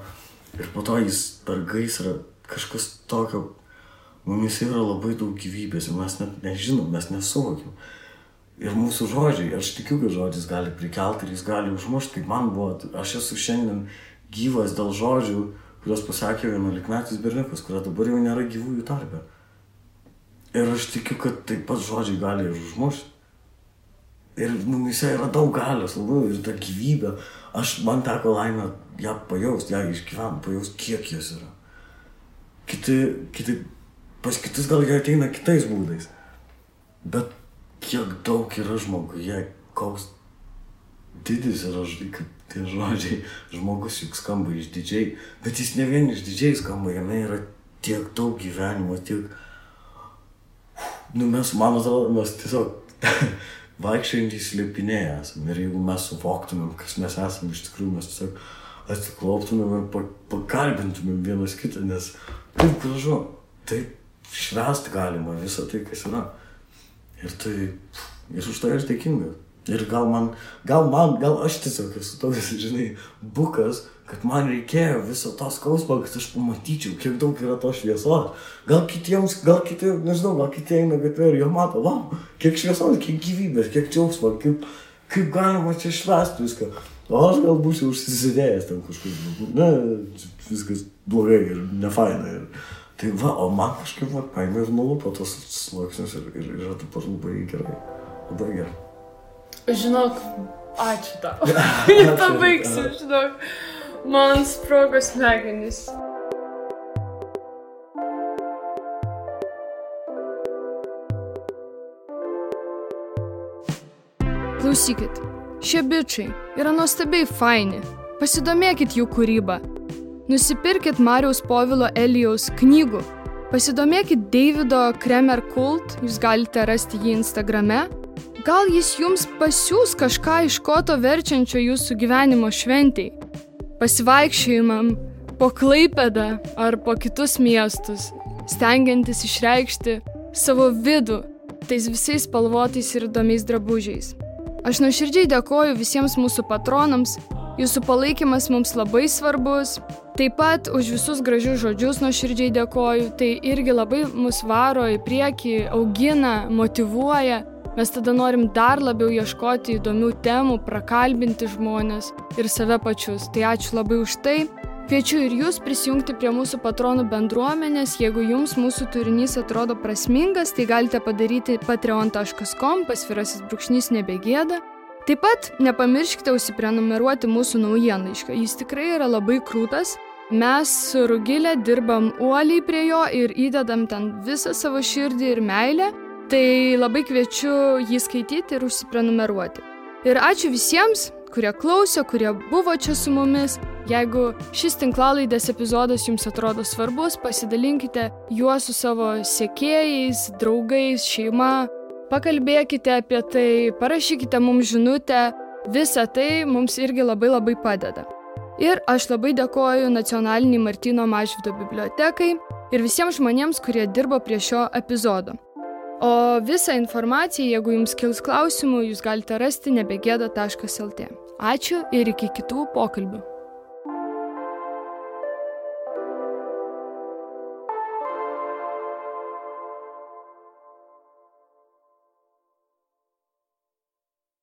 ir po to jis per gaisrą kažkas tokio, mumis yra labai daug gyvybės ir mes net nežinom, mes nesuvokim. Ir mūsų žodžiai, aš tikiu, kad žodis gali prikelti ir jis gali užmušti, kaip man buvo, aš esu šiandien gyvas dėl žodžių, kurios pasakė 11-metis berniukas, kurio dabar jau nėra gyvųjų tarpe. Ir aš tikiu, kad taip pat žodžiai gali ir užmušti. Ir mumise yra daug galios, labai, ir ta gyvybė. Man teko laimę ją pajausti, ją išgyventi, pajausti, kiek jos yra. Pas kitus gal jie ateina kitais būdais. Bet kiek daug yra žmoguje, koks didis yra, kaip tie žodžiai, žmogus juk skamba išdidžiai, bet jis ne vien išdidžiai skamba, jame yra tiek daug gyvenimo, tiek... Mes, man atrodo, mes tiesiog vaikščiojantys slėpiniai esame ir jeigu mes suvoktumėm, kas mes esame iš tikrųjų, mes tiesiog atsiklauptumėm ir pakalbintumėm vienas kitą, nes taip gražu, taip švęsti galima visą tai, kas yra. Ir už tai aš dėkingas. Ir gal aš tiesiog esu toks, žinai, bukas, kad man reikėjo viso to skausmo, kad aš pamatyčiau, kiek daug yra to šviesos. Gal kiti, nežinau, gal kiti eina gatvė ir jie mato, wow, kiek šviesos, kiek gyvybės, kiek džiaugsmo, kaip galima čia švęsti viską. O aš gal būsiu užsisidėjęs ten kažkur, viskas blogai ir nefaina. Tai va, o man kažkaip paėmė ir nulupo tos sluoksnius ir yra taip pat labai gerai, labai gerai. Žinok, ačiū tau. Pabaigsiu, žinok. Man sprogo smegenys. Klausykit, šie bičiai yra nuostabiai faini. Pasidomėkit jų kūrybą. Nusipirkit Mariaus Povilo Elijaus knygų. Pasidomėkit Davido Kremer Kult, jūs galite rasti jį Instagrame. Gal jis jums pasiūs kažką iš koto verčiančio jūsų gyvenimo šventei. Pasivaikščiojimam po Klaipėdą ar po kitus miestus, stengiantis išreikšti savo vidų tais visais spalvotais ir įdomiais drabužiais. Aš nuoširdžiai dėkoju visiems mūsų patronams, jūsų palaikymas mums labai svarbus. Taip pat už visus gražius žodžius nuoširdžiai dėkoju, tai irgi labai mus varo į priekį, augina, motyvuoja. Mes tada norim dar labiau ieškoti įdomių temų, prakalbinti žmonės ir save pačius. Tai ačiū labai už tai. Kviečiu ir jūs prisijungti prie mūsų patronų bendruomenės. Jeigu jums mūsų turinys atrodo prasmingas, tai galite padaryti patreon.com/nebegėda. Taip pat nepamirškite užsiprenumeruoti mūsų naujienlaiškio. Jis tikrai yra labai krūtas. Mes su Rugile dirbam uoliai prie jo ir įdedam ten visą savo širdį ir meilę. Tai labai kviečiu jį skaityti ir užsiprenumeruoti. Ir ačiū visiems, kurie klausė, kurie buvo čia su mumis. Jeigu šis tinklalaidės epizodas jums atrodo svarbus, pasidalinkite juo su savo sekėjais, draugais, šeima. Pakalbėkite apie tai, parašykite mums žinutę. Visa tai mums irgi labai padeda. Ir aš labai dėkoju Nacionaliniai Martyno Mažvydo bibliotekai ir visiems žmonėms, kurie dirbo prie šio epizodo. O visą informaciją, jeigu jums kils klausimų, jūs galite rasti nebegėda.lt. Ačiū ir iki kitų pokalbių.